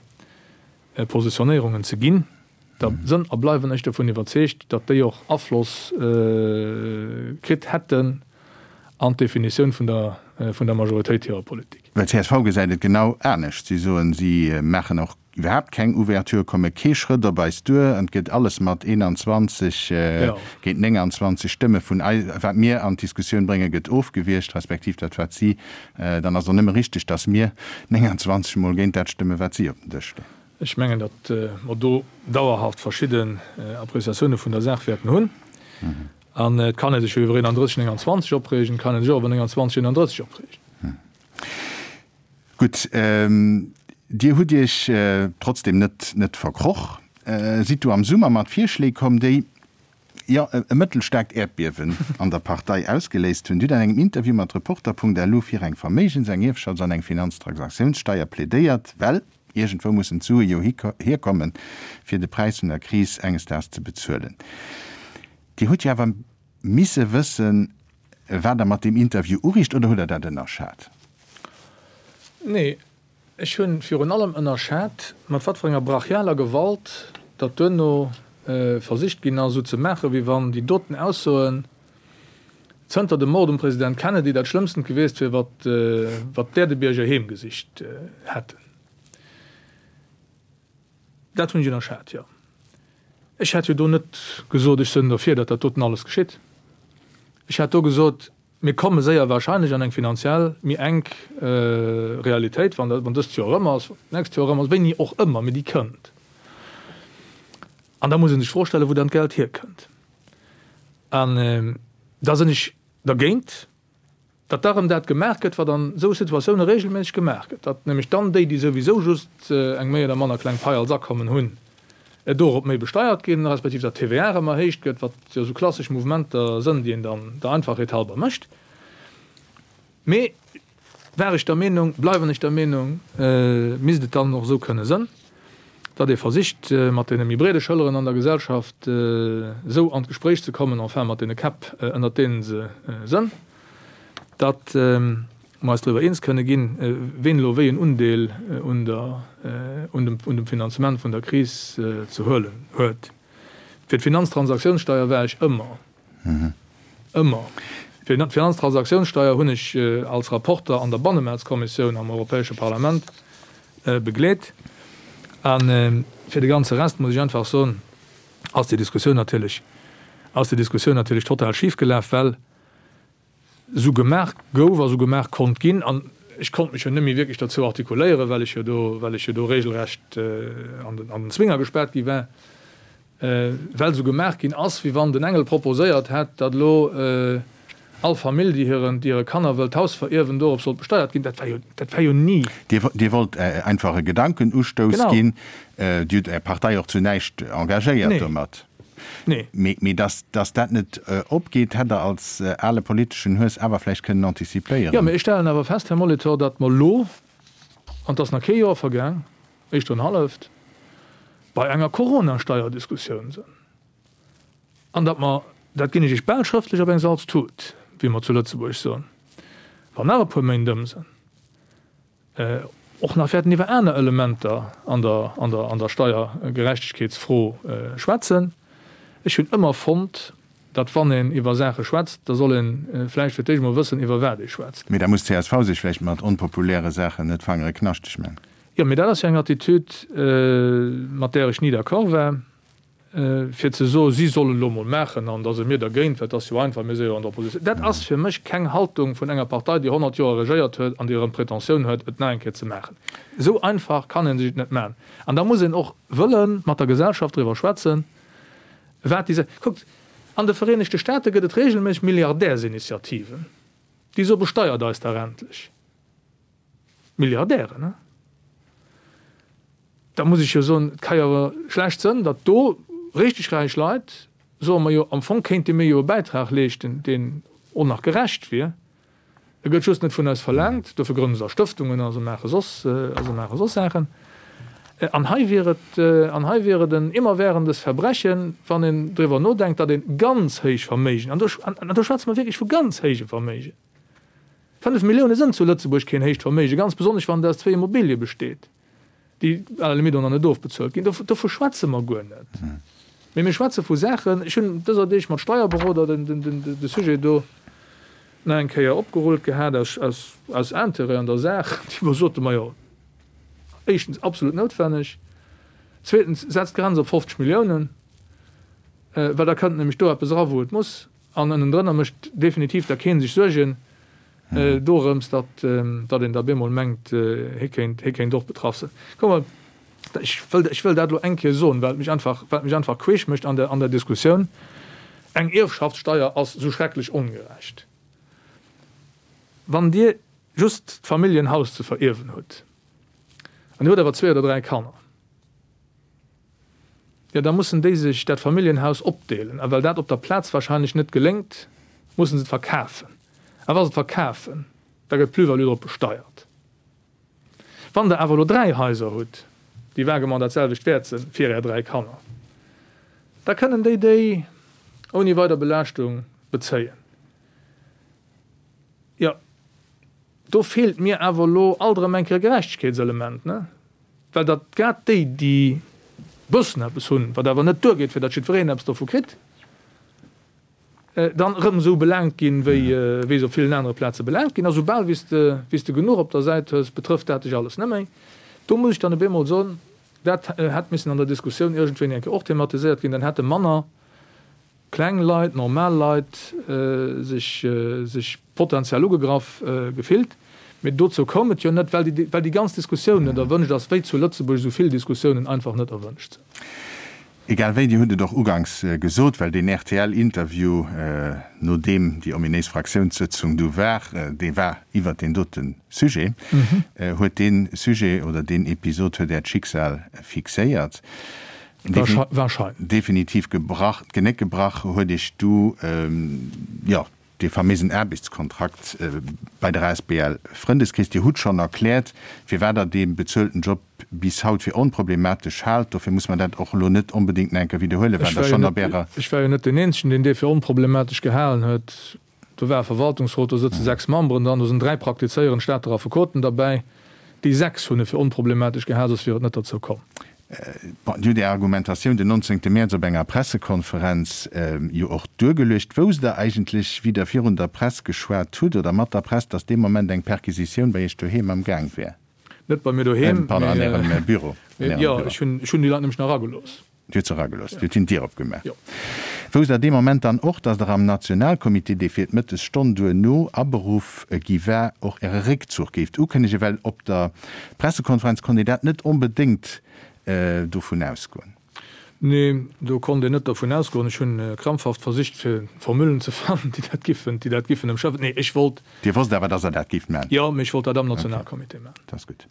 Positionéierungen ze ginn, da sënn a bleiwen ech dovun iwwerzeegt, datt déi och Afloss kritt hätten an d'Definitioun vun der vun der Majoritéit hirer Politik. Well csv gesäit et genau anescht. Si soen, si maachen och iwwerhaapt keng Ouverture, komme kee Schrëtt op eis duer an et gëtt alles mat 21 géint 29 Stëmme vun eis, wat mir an d'Diskussioun bréngen, gëtt ofgewiergt, respektiv dat wat si Dann ass och nëmme richteg, datt mir 29 mol géint dat stëmmen, wat si op den Dësch leeën. Ech mengen, datt mer do dauerhaft verschidden Appréciatioune vun der Saach wäerten hunn. An et kann ee sech jo iwwer 31, 29 opreegen, et kann ee sech och iwwer 29, 31 opreegen. Gutt, Dir hutt Iech trotzdem net net verkroch, sidd du am Summer mat Virschléi komm, déi, jo, e mëttelstaarkt Äerdbiewen an der Partei ausgeléist hunn. Dir hutt an engem Interview mat Reporter.lu fir eng Verméigens-, eng Ierfschafts an eng Finanztransaktiounssteier plädéiert, well iergendwou mussen d'Sue jo hierkommen, fir de Präis vun der Kris enges Daags ze bezuelen. Dir hutt jo awer misse wëssen, wat Der mat deem Interview uriicht, oder hutt Der dat ënnerschat? Nee, Ech hunn virun allem ënnerschat, mat wat fir enger brachialer Gewalt datt duerno versicht ginn ass, esou ze maachen, wéi wann déi doten Aussoen zënter dem Mord um President Kennedy dat Schlëmmstent gewiesst wier, wat wat d'Äerdebierger heemgesicht hätten. Dat hunn ech ënnerschat, jo. Ech hätt jo do net gesot, ech sënn derfir, datt dat doten alles geschitt. Ech hätt do gesot, Mir komme séier wahrscheinlech an eng finanziell méi enk Realitéit, wann dat, wann dëst Joer erëm ass, wann d'nächst Joer erëm ass, wéini och ëmmer, mee déi kënnt. An da muss ee sech d'Fro stellen, wou dann d'Geld hierkënnt. An da sinn ech dergéint, datt da erëm dat gemaach gëtt, wat an esou Situatioune regelméisseg gemaach gëtt, datt nämlech dann déi, déi souwisou just eng méi oder manner kleng Pai als Akommen hunn, dorop méi besteiert ginn, respektiv datt d'TVA erëm erhéicht gëtt, wat jo esou klassesch Mouvementer sënn, déi een dann der Einfachheet halber mécht. Mee war ech der Meenung, bleiwen ech der Meenung, misst et dann och esou kënne sënn, datt ee versicht, mat deene méi breede Schëlleren an der Gesellschaft esou an d'Gespréich ze kommen, enfin mat deene Käpp, ënnert deene se sënn, datt mer eis driwwer eens kënne ginn, ween elo wéi en Undeel un der, un dem, un dem Finanzement vun der Kris ze huelen huet. Fir d'Finanztransaktionssteuer war ech ëmmer, ëmmer. Fir d'Finanztransaktionssteuer hunn ech als Rapporter an der Bannemaartskommissioun am Europäesche Parlament begleet. A fir de ganze Rest muss ech einfach soen, ass déi Diskussioun natierlech, ass déi Diskussioun natierlech total schifgelaf, well. Esou gemaach gouf a sou gemaach konnt ginn. An ech konnt mech jo net méi wierklech derzou artikuléieren, well ech jo do, well ech jo do regelrecht an den, an den Zwinger gespaart gi war, well esou gemaach ginn ass, wéi wann den Engel proposéiert hätt, datt elo all Famill, déi hiren, déi hire Kanner wëllt d'Haus verierwen, dorop sollt besteiert ginn. Dat war jo, dat war jo ni. Dir, Dir wollt einfach e Gedankenustouss ginn. Dir hutt Är Partei och zu näischt engagéiert domat. Nee. Mee dass dat net opgeet, hätt Der als ale politeschen Hues awer vläicht kënnen antizipéieren. Jo, mee ech stellen awer fest, Här Molitor, datt mer elo, an et ass nach kee Joer vergaang, éischter en halleft, bei enger Coronasteierdiskussioun sinn an datt mer, dat ginn ech Iech bal schrëftlech op eng Salztut, wéi mer zu Lëtzebuerg soen, wann nach e puer Méint ëm sinn, och nach wäerten iwwer aner Elementer an der, an der, an der Steiergerechtegkeetsfro schwätzen. Ech hunn ëmmer fonnt, datt wann een iwwer Saache schwätzt, da soll ee vläicht fir d'éischt emol wëssen, iwwer wat ee schwätzt. Mee da muss d'CSV sech vläicht mat onpopuläre Saachen net d'Fangere knaschteg man. Jo, mee dat ass jo eng Attitüd, mat där ech ni d'accord war. Fir ze soen, si sollen elo emol maachen an da si mir dergéint, well et ass jo einfach, mir si jo an der Oppositioun, dat ass fir mech keng Haltung vun enger Partei, déi 100 Joer regéiert huet an déi erëm d'Pretentioun huet, et nach eng Kéier ze maachen. Esou einfach kann ee sech et net maachen. An da muss een och wëlle mat der Gesellschaft driwwer schwätzen, wat déi. Kuckt, an de Vereenegte Staate gëtt et regelméisseg Milliardärsinitiativen, déi soe besteiert eis dach endlech. Milliardären, he? Da muss ech jo soen, et ka jo awer schlecht sënn, datt do richteg räich Leit soen, majo am Fong kéinte mir jo e Bäitrag leeschten, deen och nach gerecht wier, e gëtt just net vun eis verlaangt, dofir grënne se da Stëftungen a se maache soss, a se maache soss Saachen. An hei wier et, an hei wier et en immerwährendes Verbrechen, wann een driwwer nodenkt, datt ee ganz héich Verméigen, an do, an do schwätze mer wierklech vu ganz héije Verméigen, 5 Millioune sënn zu Lëtzebuerg keen héicht Verméigen, ganz besonnesch wann et aus zwéi Immobilie besteet, déi à la limite och nach net ofbezuelt ginn. Dovu schwätze mer guer net. Mee mir schwätze vu Saachen, ech hunn dëser Deeg mat Steierberoder de Sujet do nach eng Kéier opgerullt gehat aus Intérêt an der Saach, déi mer soten, majo, éischtens absolut noutwenneg, zweetens setzt d'Grenz op 50 Milliounen, well da kënnt nämlech do eppes era wou et muss. An ënnendrënner mécht definitiv da kee sech Suergen dorëms, datt een da bemol mengt, hie kéint, hie kéint och betraff sinn. Kuck mol, ech wëll, ech wëll dat elo eng Kéier soen, well et mech einfach, well et mech einfach queesch mécht an der, an der Diskussioun, Eng Ierfschaftssteier ass esou schrecklech ongerecht. Wann Dir just d'Familljenhaus ze verierwen hutt an Dir hutt awer zwee oder dräi Kanner, Jo, da mussen déi sech dat Familljenhaus opdeelen. A well dat op der Plaz wahrscheinlech net geléngt, mussen se et verkafen. A wa se et verkafen, da gëtt d'Plus-value drop besteiert. Wann Der awer elo dräi Haiser hutt, déi vaguement dat selwecht wäert sinn, fir Är dräi Kanner, da kënnen déi déi ouni weider Belaaschtung bezéien. Jo, do feelt mir awer elo alt erëm eng Kéier e Gerechtegkeetselement, ne? Well datt grad déi, déi bëssen eppes hunn, wat awer net duergeet, fir datt jiddwereen eppes dovu kritt, dann erëm esou belaangt ginn, wéi wéi se op villen anere Plaze belaangt ginn. A soubal wéi s de wéi s de genuch op der Säit hues, betrëfft dat dech alles net méi. Do muss ech dann op eemol soen, dat hätt missen an der Diskussioun iergendwéini eng Kéier och thematiséiert ginn, dann hätte manner kleng Leit, normal Leit sech sech potenziell ugegraff gefillt. Mee dozou koum et jo net, well déi well déi ganz Diskussioun net erwënscht ass, wéi zu Lëtzebuerg esou vill Diskussiounen einfach net erwënscht sinn. Egal wéi, Dir hutt et och uganks gesot, well deen RTL-Interview, nodeem déi ominéis Fraktiounssëtzung du war, dee war iwwert deen dote Sujet, huet dee Sujet oder deen Episod huet Äert Schicksal fixéiert. Wahrscheinlech. Definitiv gebrach, d'Genéck gebrach huet Iech du, jo, dee faméisen Aarbechtskontrakt bei der asbl Frëndeskrees. Dir hutt schonn erkläert, firwat Der dee bezuelten Job bis haut fir onproblematesch haalt. Dofir muss mer dat och elo net onbedéngt nach eng Kéier widderhuelen, wat Der schonn op Ärer. Ech war jo net deen Eenzegen, deen dee fir onproblematesch gehalen huet. Do war e Verwaltungsrot, do sëtze 6 Memberen dran, do sinn 3 praktizéierend Stater Affekoten derbäi. Déi 6 hunn e fir onproblematesch gehal, soss wier et net derzou komm. Bon, Dir hutt Är Argumentatioun den 19 Mäerz op enger Pressekonferenz jo och duergeluecht. Wousst Der eigentlech, wéi Der virun der Press geschwat hutt oder mat der Press, datt dee Moment eng Perquisitioun bei Iech doheem am Gaang wär? Net bei mir doheem, Pardon, an Ärem Büro. Mee jo, ech hunn déi Leit nämlech nach eragelooss. Dir hutt se eragelooss? Dir hutt hinnen d'Dier opgemaach? Jo. Wousst Der dee Moment dann och, datt Der am Nationalcomité, dee fir d'Mëttesstonn duerno aberuff gi war, och Äre Réckzuch géift ukënnegen? Well op der Pressekonferenz konnt een dat net onbedéngt dovun ausgoen. Nee, do konnt een net dervun ausgoen. Ech hunn krampfhaft versicht fir Formullen ze fannen, déi dat giffen, déi dat giffen ëmschëffen. Nee, ech wollt. Dir wosst awer, datt Der dat géift maachen? Jo, mee ech wollt dat am Nationalcomité maachen. Dat ass gutt.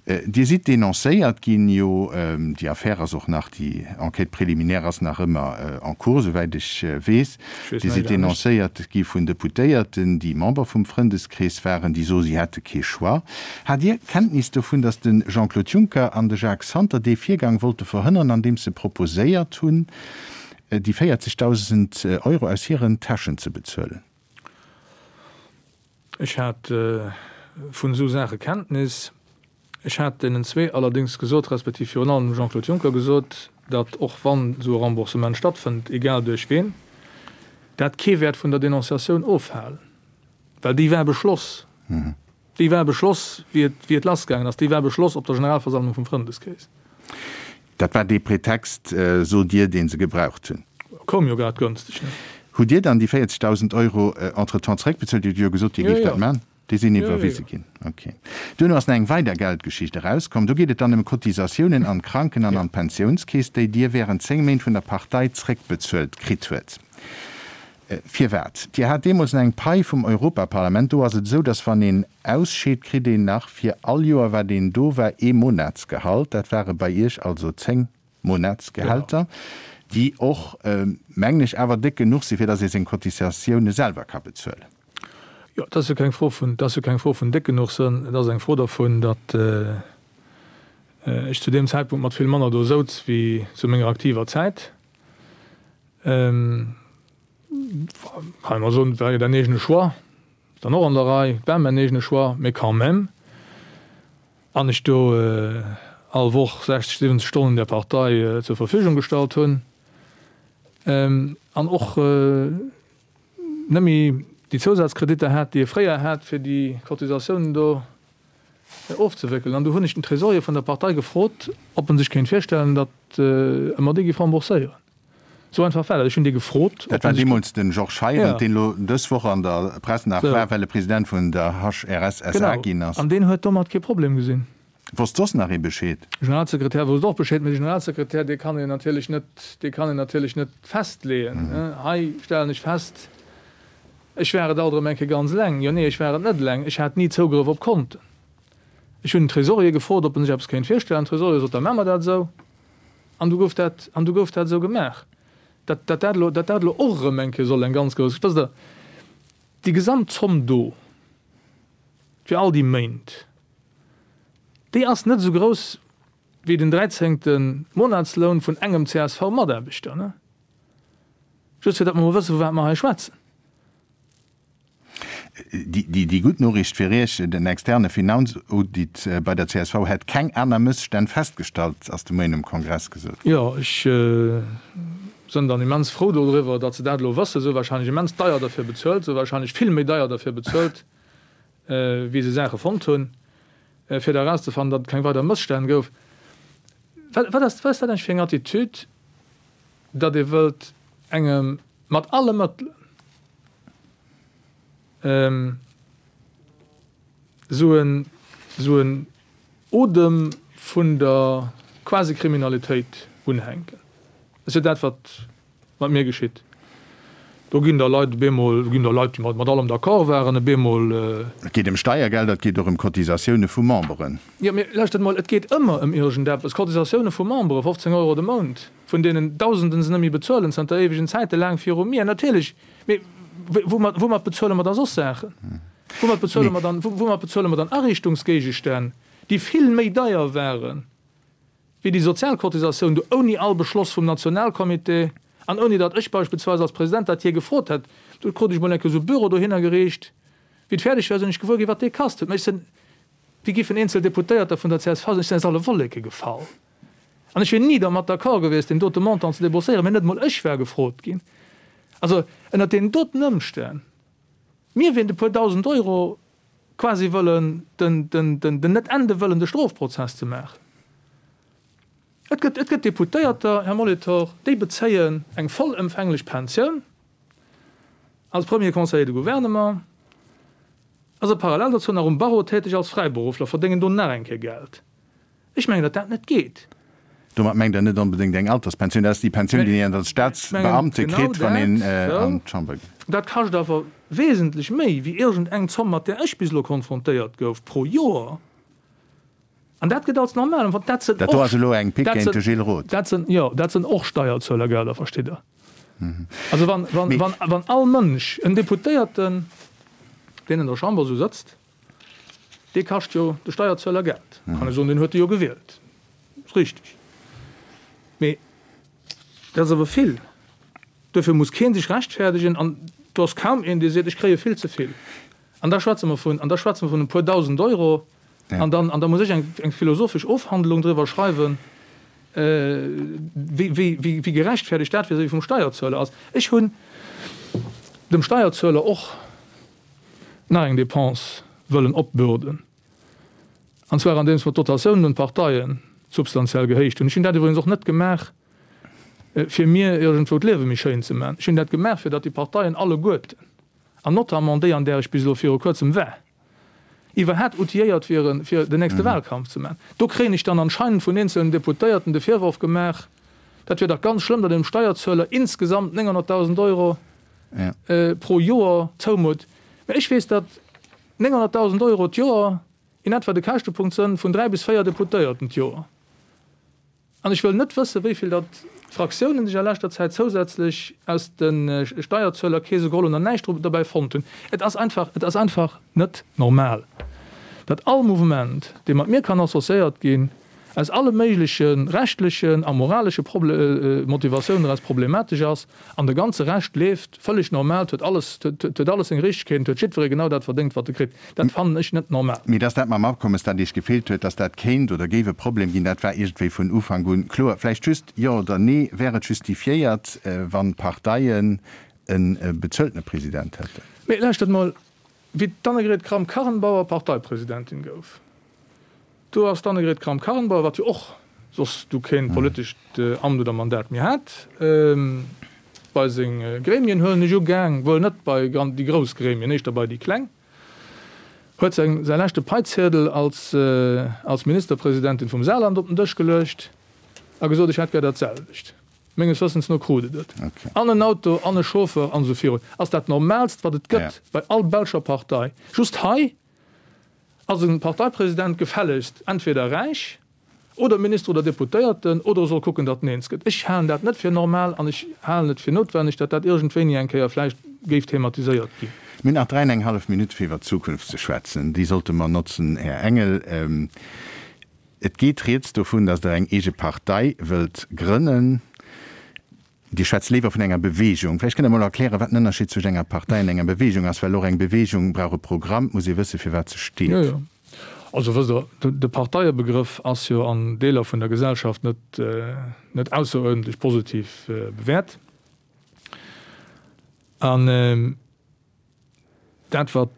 Dir sidd denoncéiert ginn, jo, déi Affär ass och nach, déi Enquête préliminaire ass nach ëmmer en cours, souwäit ech weess. Dir sidd denoncéiert gi vun Deputéierten, déi Member vum Frëndeskrees waren, déi soe si hätte kee Choix. Hat Dir Kenntnis dovun, datt de Jean-Claude Juncker an de Jacques Santer dee Virgang wollte verhënneren, andeems se proposéiert hunn, déi 40.000 Euro aus hiren Täschen ze bezuelen? Ech hat vun esou Saache Kenntnis. Ech hat deenen zwee allerdéngs gesot, respektiv virun allem dem Jean-Claude Juncker gesot, datt och wann esou e Remboursement stattfënnt, egal duerch ween, dat kee wäert vun der Denonciatioun ofhalen, well déi war beschloss. Déi war beschloss, wéi et, wéi et lassgaangen ass. Déi war beschloss op der Generalversammlung vum Frëndeskrees. Dat war dee Pretext, sot Dir, dee se gebraucht hunn. Koum jo grad gönstig, ne? Hutt Dir dann déi 40.000 Euro entretemps zeréckbezuelt? Dir hutt jo gesot, Dir géift dat maachen. Déi sinn iwwerwise ginn. Ok. Duerno ass nach eng weider Geldgeschicht erauskomm. Do geet et dann ëm Cotisatiounen an d'Kranken an an d'Pensiounskeess, déi Dir wärend 10 Méint vun der Partei zeréckbezuelt kritt huet. Firwat? Dir hat deemools nach eng Pai vum Europaparlament. Do ass et esou, datt wann een ausscheet, kritt een nach fir all Joer, wat een do war, ee Monatsgehalt. Dat ware bei Iech also 10 Monatsgehälter, déi och, mengen ech, awer déck genuch sinn, fir datt ee seng Cotisatioune selwer ka bezuelen. Jo, et ass jo keng Fro vun, et ass jo keng Fro vun déck genuch sënn. Et ass eng Fro dervun, datt ech zu deem Zäitpunkt mat vill manner do souz wéi zu menger aktiver Zäit. Kann ee mol soen, et war jo däin eegene Choix, ass dann och an der Rei, et war mäin eegene Choix, mee quand même. An ech do all Woch 60, 70 Stonnen der Partei zur Verfügung gestallt hunn an och net méi déi Zousazkreditter hat, déi ee fréier hat, fir déi Cotisatiounen do ofzewéckelen. An du hunn ech den Trésorier vun der Partei gefrot, ob en sech kéint virstellen, datt e mer déi géif rembourséieren. Esou einfach war dat. Ech hunn dee gefrot, ob Dat war en sech. deemools de Georges Heirendt, deen elo dës Woch an der Press nach war, well e President vun der HRS SA ginn ass. Genau. An deen huet domat kee Problem gesinn. Wosst soss nach ee Bescheed? De Generalsekretär wousst och Bescheed, mee de Generalsekretär, dee kann een natierlech net, dee kann een natierlech net festleeën. Hei stellen ech fest, ech war et alt erëm eng Kéier ganz eleng. Jo, nee, ech war et net eleng, ech hat ni Zougrëff op Konten. Ech hunn den Tresorier gefrot, ob en sech eppes kéint virstellen. Den Tresorier sot, da maache mer dat esou. An du gouf dat, an du gouf dat esou gemaach. Dat, dat dat elo, dat dat elo och erëm eng Kéier soll eng ganz grouss, wësst Der, déi gesamt Zomm do fir all déi Méint, Déi ass net esou grouss wéi den dräizéngte Monatsloun vun engem CSV-Mataarbechter, ne? Just fir datt mer mol wëssen, vu wat mer hei schwätzen. Déi gutt Noriicht fir Iech, Den externe Finanzaudit bei der csv hätt keng aner Mësstänn festgestallt, ass de Moien um Kongress gesot ginn. Jo, ech sënn dann immens frou dodriwwer, datt se dat elo wëssen. Se hu warscheinlech immens deier derfir bezuelt, se hu warscheinlech vill méi deier derfir bezuelt, wéi se Saache fonnt hunn, fir da erauszefannen, datt et keng weider Mësstänn gouf. Wat, wat ass, wat ass dat eigentlech fir eng Attitüd, datt ee wëllt engem mat alle Mëttelen esou en, esou en Odem vun der Quasi-Kriminalitéit unhänken? Dat ass jo dat, wat Wat mir geschitt. Do ginn da Leit op eemol, do ginn da Leit, déi mat allem d'accord waren, op eemol. Et geet ëm Steiergelder, et geet och ëm Cotisatioune vu Memberen. Jo, mee lauschtert emol, et geet ëmmer ëm iergendeppes. Cotisatioune vu Memberen, 15 Euro de Mount, vun deenen Dausenden se net méi bezuelen, zanter éiwegen Zäiten, laang viru mir. Natierlech, mee woumat, woumat bezuele mer da soss Saachen? Woumat bezuele mer dann, woumat bezuele mer dann Ariichtungsgéigestänn, déi vill méi deier waren? wéi déi Sozialcotisatioun do ouni all Beschloss vum Nationalcomité an ouni datt ech beispillsweis als President dat jee gefrot hätt, do krut ech mol eng Kéier esou e Büro dohinner gereecht, wéi et fäerdeg war, sinn ech gewuer ginn, wat dee kasst huet. Mä ech sinn, wéi giffen eenzel Deputéierter vun der csv sinn, ech sinn aus alle Wolleke gefall an ech wier ni dermat d'accord gewiescht, deen dote Montant ze debourséieren, mä net emol ech war gefrot ginn. Also ënnert deenen doten Ëmstänn, mir wéint e puer dausend Euro quasi wëllen den, den, den, den net ende wëllende Strofprozess ze maachen. Et gëtt, et gëtt Deputéierter, Här Molitor, déi bezéien eng vollëmfänglech Pensioun als Premier Conseiller de Gouvernement, a se parallel dozou nach um Barreau täteg als Fräiberuffler, verdéngen do nach eng Kéier Geld. Ech mengen, datt dat net geet. Domat mengt Der net onbedéngt eng Alterspensioun, dat ass déi Pensioun, déi een als Staatsbeamte kritt, wann een an d'Chamber geet. Dat kascht awer wesentlech méi wéi iergend eng Zomm, mat där ech bis elo konfrontéiert gouf, pro Joer. An dat gëtt als normal empfonnt. Dat sinn Dat do ass elo eng Pick géint de Gilles Roth. Dat sinn, jo, dat sinn och Steierzuelergelder, verstitt Der. Also wann, wann, wann, wann all Mënsch, en Deputéierten, deen an der Chamber esou sëtzt, dee kascht jo de Steierzueler Geld. Kann ee soen, deen huet e jo gewielt. Ass richteg. Mee dat ass awer vill. Duerfir muss kee sech rechtfäerdegen an do ass kaum een, dee seet, ech kréie vill ze vill. An da schwätze mer vun, an da schwätze mer vun e puer dausend Euro. An dann, an da muss ech eng, eng philosophesch Ofhandlung driwwer schreiwen, wéi, wéi, wéi, wéi gerechtfertigt dat vis-à-vis vum Steierzueler ass. Ech hunn dem Steierzueler och nach eng Dépense wëllen opbürden, an zwar andeems mer d'Dotatiounen un d'Parteien substantiell gehéicht hunn. Ech hunn dat iwwregens och net gemaach, fir mir iergendwou d'Liewe méi schéin ze maachen. Ech hunn dat gemaach, fir datt déi Parteien alleguerten, an notamment déi, an där ech bis elo viru Kuerzem war, iwwerhat outilléiert wieren, fir den nächste Wahlkampf ze maachen. Do kréien ech dann anscheinend vun eenzelnen Deputéierten de Virworf gemaach, dat wier dach ganz schlëmm, datt een dem Steierzueler insgesamt 900.000 Euro pro Joer zoumutt. Mä ech weess, datt 900.000 Euro d'Joer in etwa de Käschtepunkt sënn vun dräi bis véier Deputéierten d'Joer. An ech wëll net wëssen, wéi vill datt d'Fraktiounen sech a leschter Zäit zousätzlech aus de Steierzuelerkeese geholl hunn an näischt dobäi fonnt hunn. Et ass einfach, et ass einfach net normal, datt all Mouvement, dee mat mir kann associéiert ginn, aus alle méigleche rechtlechen a moralesche Motivatiounen eraus problematesch ass an de ganze Rescht leeft vëlleg normal, 't huet alles, 't huet alles seng Richtegkeet an 't huet jiddweree genau dat verdéngt, wat e kritt. Dat fannen ech net normal. Mee dass dat mam Afkommes, dat Iech gefeelt huet, dass dat kéint oder géif e Problem ginn, dat war iergendwéi vun Ufank un kloer. Vläicht just Jo oder Nee, Wär et justifiéiert, wann d'Parteien e bezueltene President hätten? Mee lauschtert mol, wéi d'Annegret Kramp-Karrenbauer Parteipresidentin gouf, Do ass d'Annegret Kramp-Karrenbauer, wat jo och soss du keen politescht Amt oder Mandat méi hat, bei seng Gremien, huelen ech u, gaang, wuel net bei déi grouss Gremien, éischter bei déi kleng, huet seng säi leschte Paiziedel als als Ministerpresidentin vum Saarland op den Dësch geluecht a gesot, ech hätt gär dat selwecht. Menges Wëssens no krut et et. An en Auto, an e Chauffeur an esou virun. Ass dat Normaalst, wat et gëtt bei all belscher Partei. Just hei Ass e Parteipresident gefällegst entweder räich oder Minister oder Deputéierten oder e soll kucken, datt en eens gëtt. Ech halen dat net fir normal an ech halen et fir noutwenneg, datt dat iergendwéini eng Kéier vläicht géif thematiséiert ginn. Mir hunn nach dräi an eng hallef Minutt fir iwwer d'Zukunft ze schwätzen. Déi sollte mer notzen, Här Engel. Et geet rieds dovun, datt Der eng eege Partei wëllt grënnen. Dir schwätzt léiwer vun enger Beweegung. Vläicht kënnt Der mol erklären, wat den Ënnerscheed zwëscht enger Partei an enger Beweegung ass, well och eng Beweegung brauch e Programm, et muss ee wëssen, fir wat se steet. Jo, jo. Also wësst Der, de Parteiebegrëff ass jo an Deeler vun der Gesellschaft net, net ausseruerdentlech positiv bewäert. An Dat, wat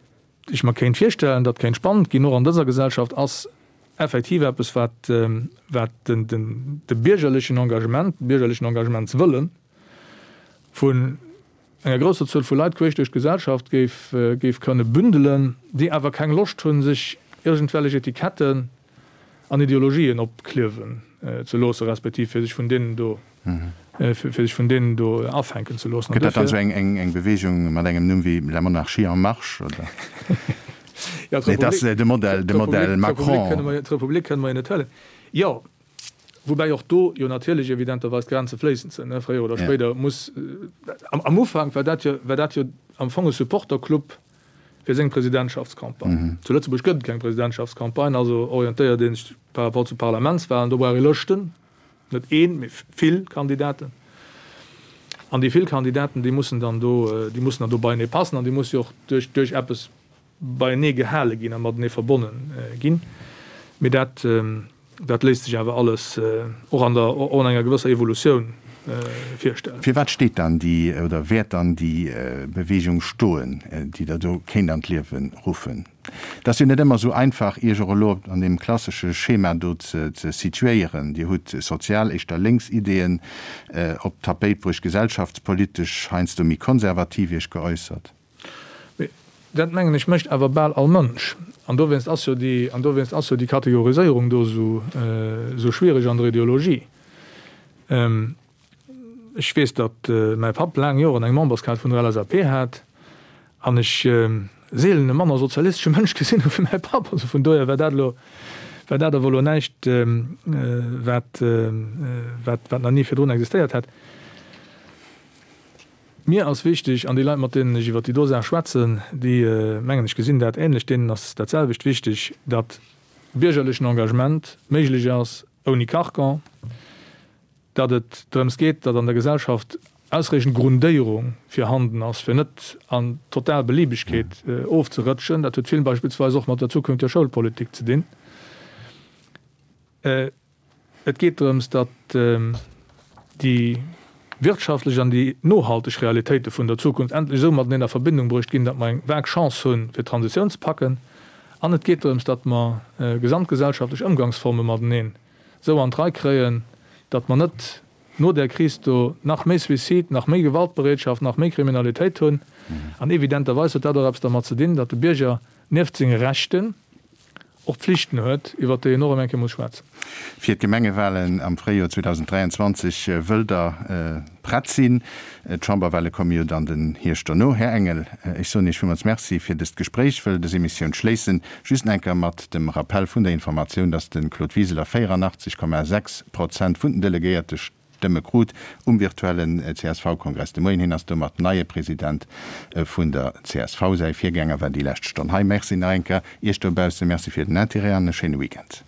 ech mer kéint virstellen, datt kéint spannend ginn, och an dëser Gesellschaft, ass effektiv eppes, wat, wat den, den, de biergerlechen Engagement, de biergerlechen Engagementswëlle vun enger grousser Zuel vu Leit queesch duerch d'Gesellschaft géif, géif kënne bündelen, déi awer keng Loscht hunn, sech iergendwellech Etiketten an Ideologien opkliewen ze loossen, respektiv fir sech vun deenen do fir sech vun deenen do afänken ze loossen. Gëtt dat dann esou eng Bewegung mat engem Numm wéi La Monarchie en marche, oder? Jo, Nee, dat ass de Modell, de Modell Macron. D'Republik kënne mer jo net huelen. Jo, woubäi och do jo natierlech evidenterweis d'Grenze fléissend sinn, ne, fréier oder spéider muss, am Ufank war dat jo, war dat jo am Fong e Supporterclub fir seng Presidentschaftscampagne. Zu Lëtzebuerg gëtt et keng Presidentschaftscampagne, also orientéiert ee sech par rapport zu Parlamentswahlen, do brauch ee Lëschten. Net een, mee vill Kandidaten. An déi vill Kandidaten, déi mussen dann do, déi mussen dann do beienee passen an déi musse jo och duerch, duerch eppes beienee gehale ginn a matenee verbonne ginn. Mee dat, dat léisst sech awer alles och an der, och an enger gewësser Evolutioun virstellen. Firwat steet dann déi oder wäert dann déi Bewegung stoen, déi Der do kéint an d'Liewe ruffen? Et ass jo net ëmmer esou einfach, Iech och elo an deem klassesche Schema do ze situéieren. Dir hutt sozial, éischter lénks Ideeën op d'Tapéit bruecht, gesellschaftspolitesch heiansdo méi konservativ Iech geäussert. Mee dat, mengen ech, mécht awer bal all Mënsch. An dowéinst ass jo déi, an dowéinst ass jo déi Kategoriséierung do esou, esou schwierig an der Ideologie. Ech weess, datt mäi Papp laang Joren eng Memberskaart vun der LSAP hat an ech seelen e manner sozialistesche Mënsch gesinn hu wéi mäi Papp. Also vun dohier war dat elo, war dat awer elo näischt, wat, wat, wat nach ni virdrun existéiert hätt. Mir ass wichteg, an déi Leit, mat deenen ech iwwer déi do Saach schwätzen, déi, mengen ech, gesinn dat ähnlech, deenen ass dat selwecht wichteg, datt biergerlechen Engagement méiglech ass ouni Carcan, datt et drëms geet, datt an der Gesellschaft ausreechend Grundéierung virhanden ass, fir net an total Beliebegkeet ofzerëtschen. Dat huet vill beispillsweis och mat der zukünftiger Schoulpolitik ze dinn. Et geet drëms, datt déi wirtschaftlech an déi nohalteg Realitéite vun der Zukunft endlech esou mateneen a Verbindung bruecht ginn, datt mer eng vag Chance hunn, fir d'Transitioun ze packen. An et geet drëms, datt mer gesamtgesellschaftlech Ëmgangsforme mateneen esou an d'Rei kréien, datt mer net no där Kris do nach méi Suicide, nach méi Gewaltbereetschaft, nach méi Kriminalitéit hunn. An evidenterweis huet dat och eppes dermat ze dinn, datt de Bierger nieft senge Rechten och Pflichten huet, iwwert déi een och ëm eng Kéier muss schwätzen. Fir d'Gemengewahlen am Fréijoer 2023 wëllt Der prett sinn. D'Chamberwahle komme jo dann den Hierscht dono. Här Engel, ech soen Iech villmools Merci fir dëst Gespréich, wëll dës Emissioun schléissen just nach eng Kéier mat dem Rappell vun der Informatioun, dass de Claude Wiseler 84,6 Prozent vun den Delegéierte Stëmme krut um virtuellen CSV-Kongress de Moien. Hien ass domat neie President vun der csv. Säi Virgänger war déi lescht Stonn hei. Merci nach eng Kéier Iech dobausse, Merci fir den Interêt an e schéine Weekend.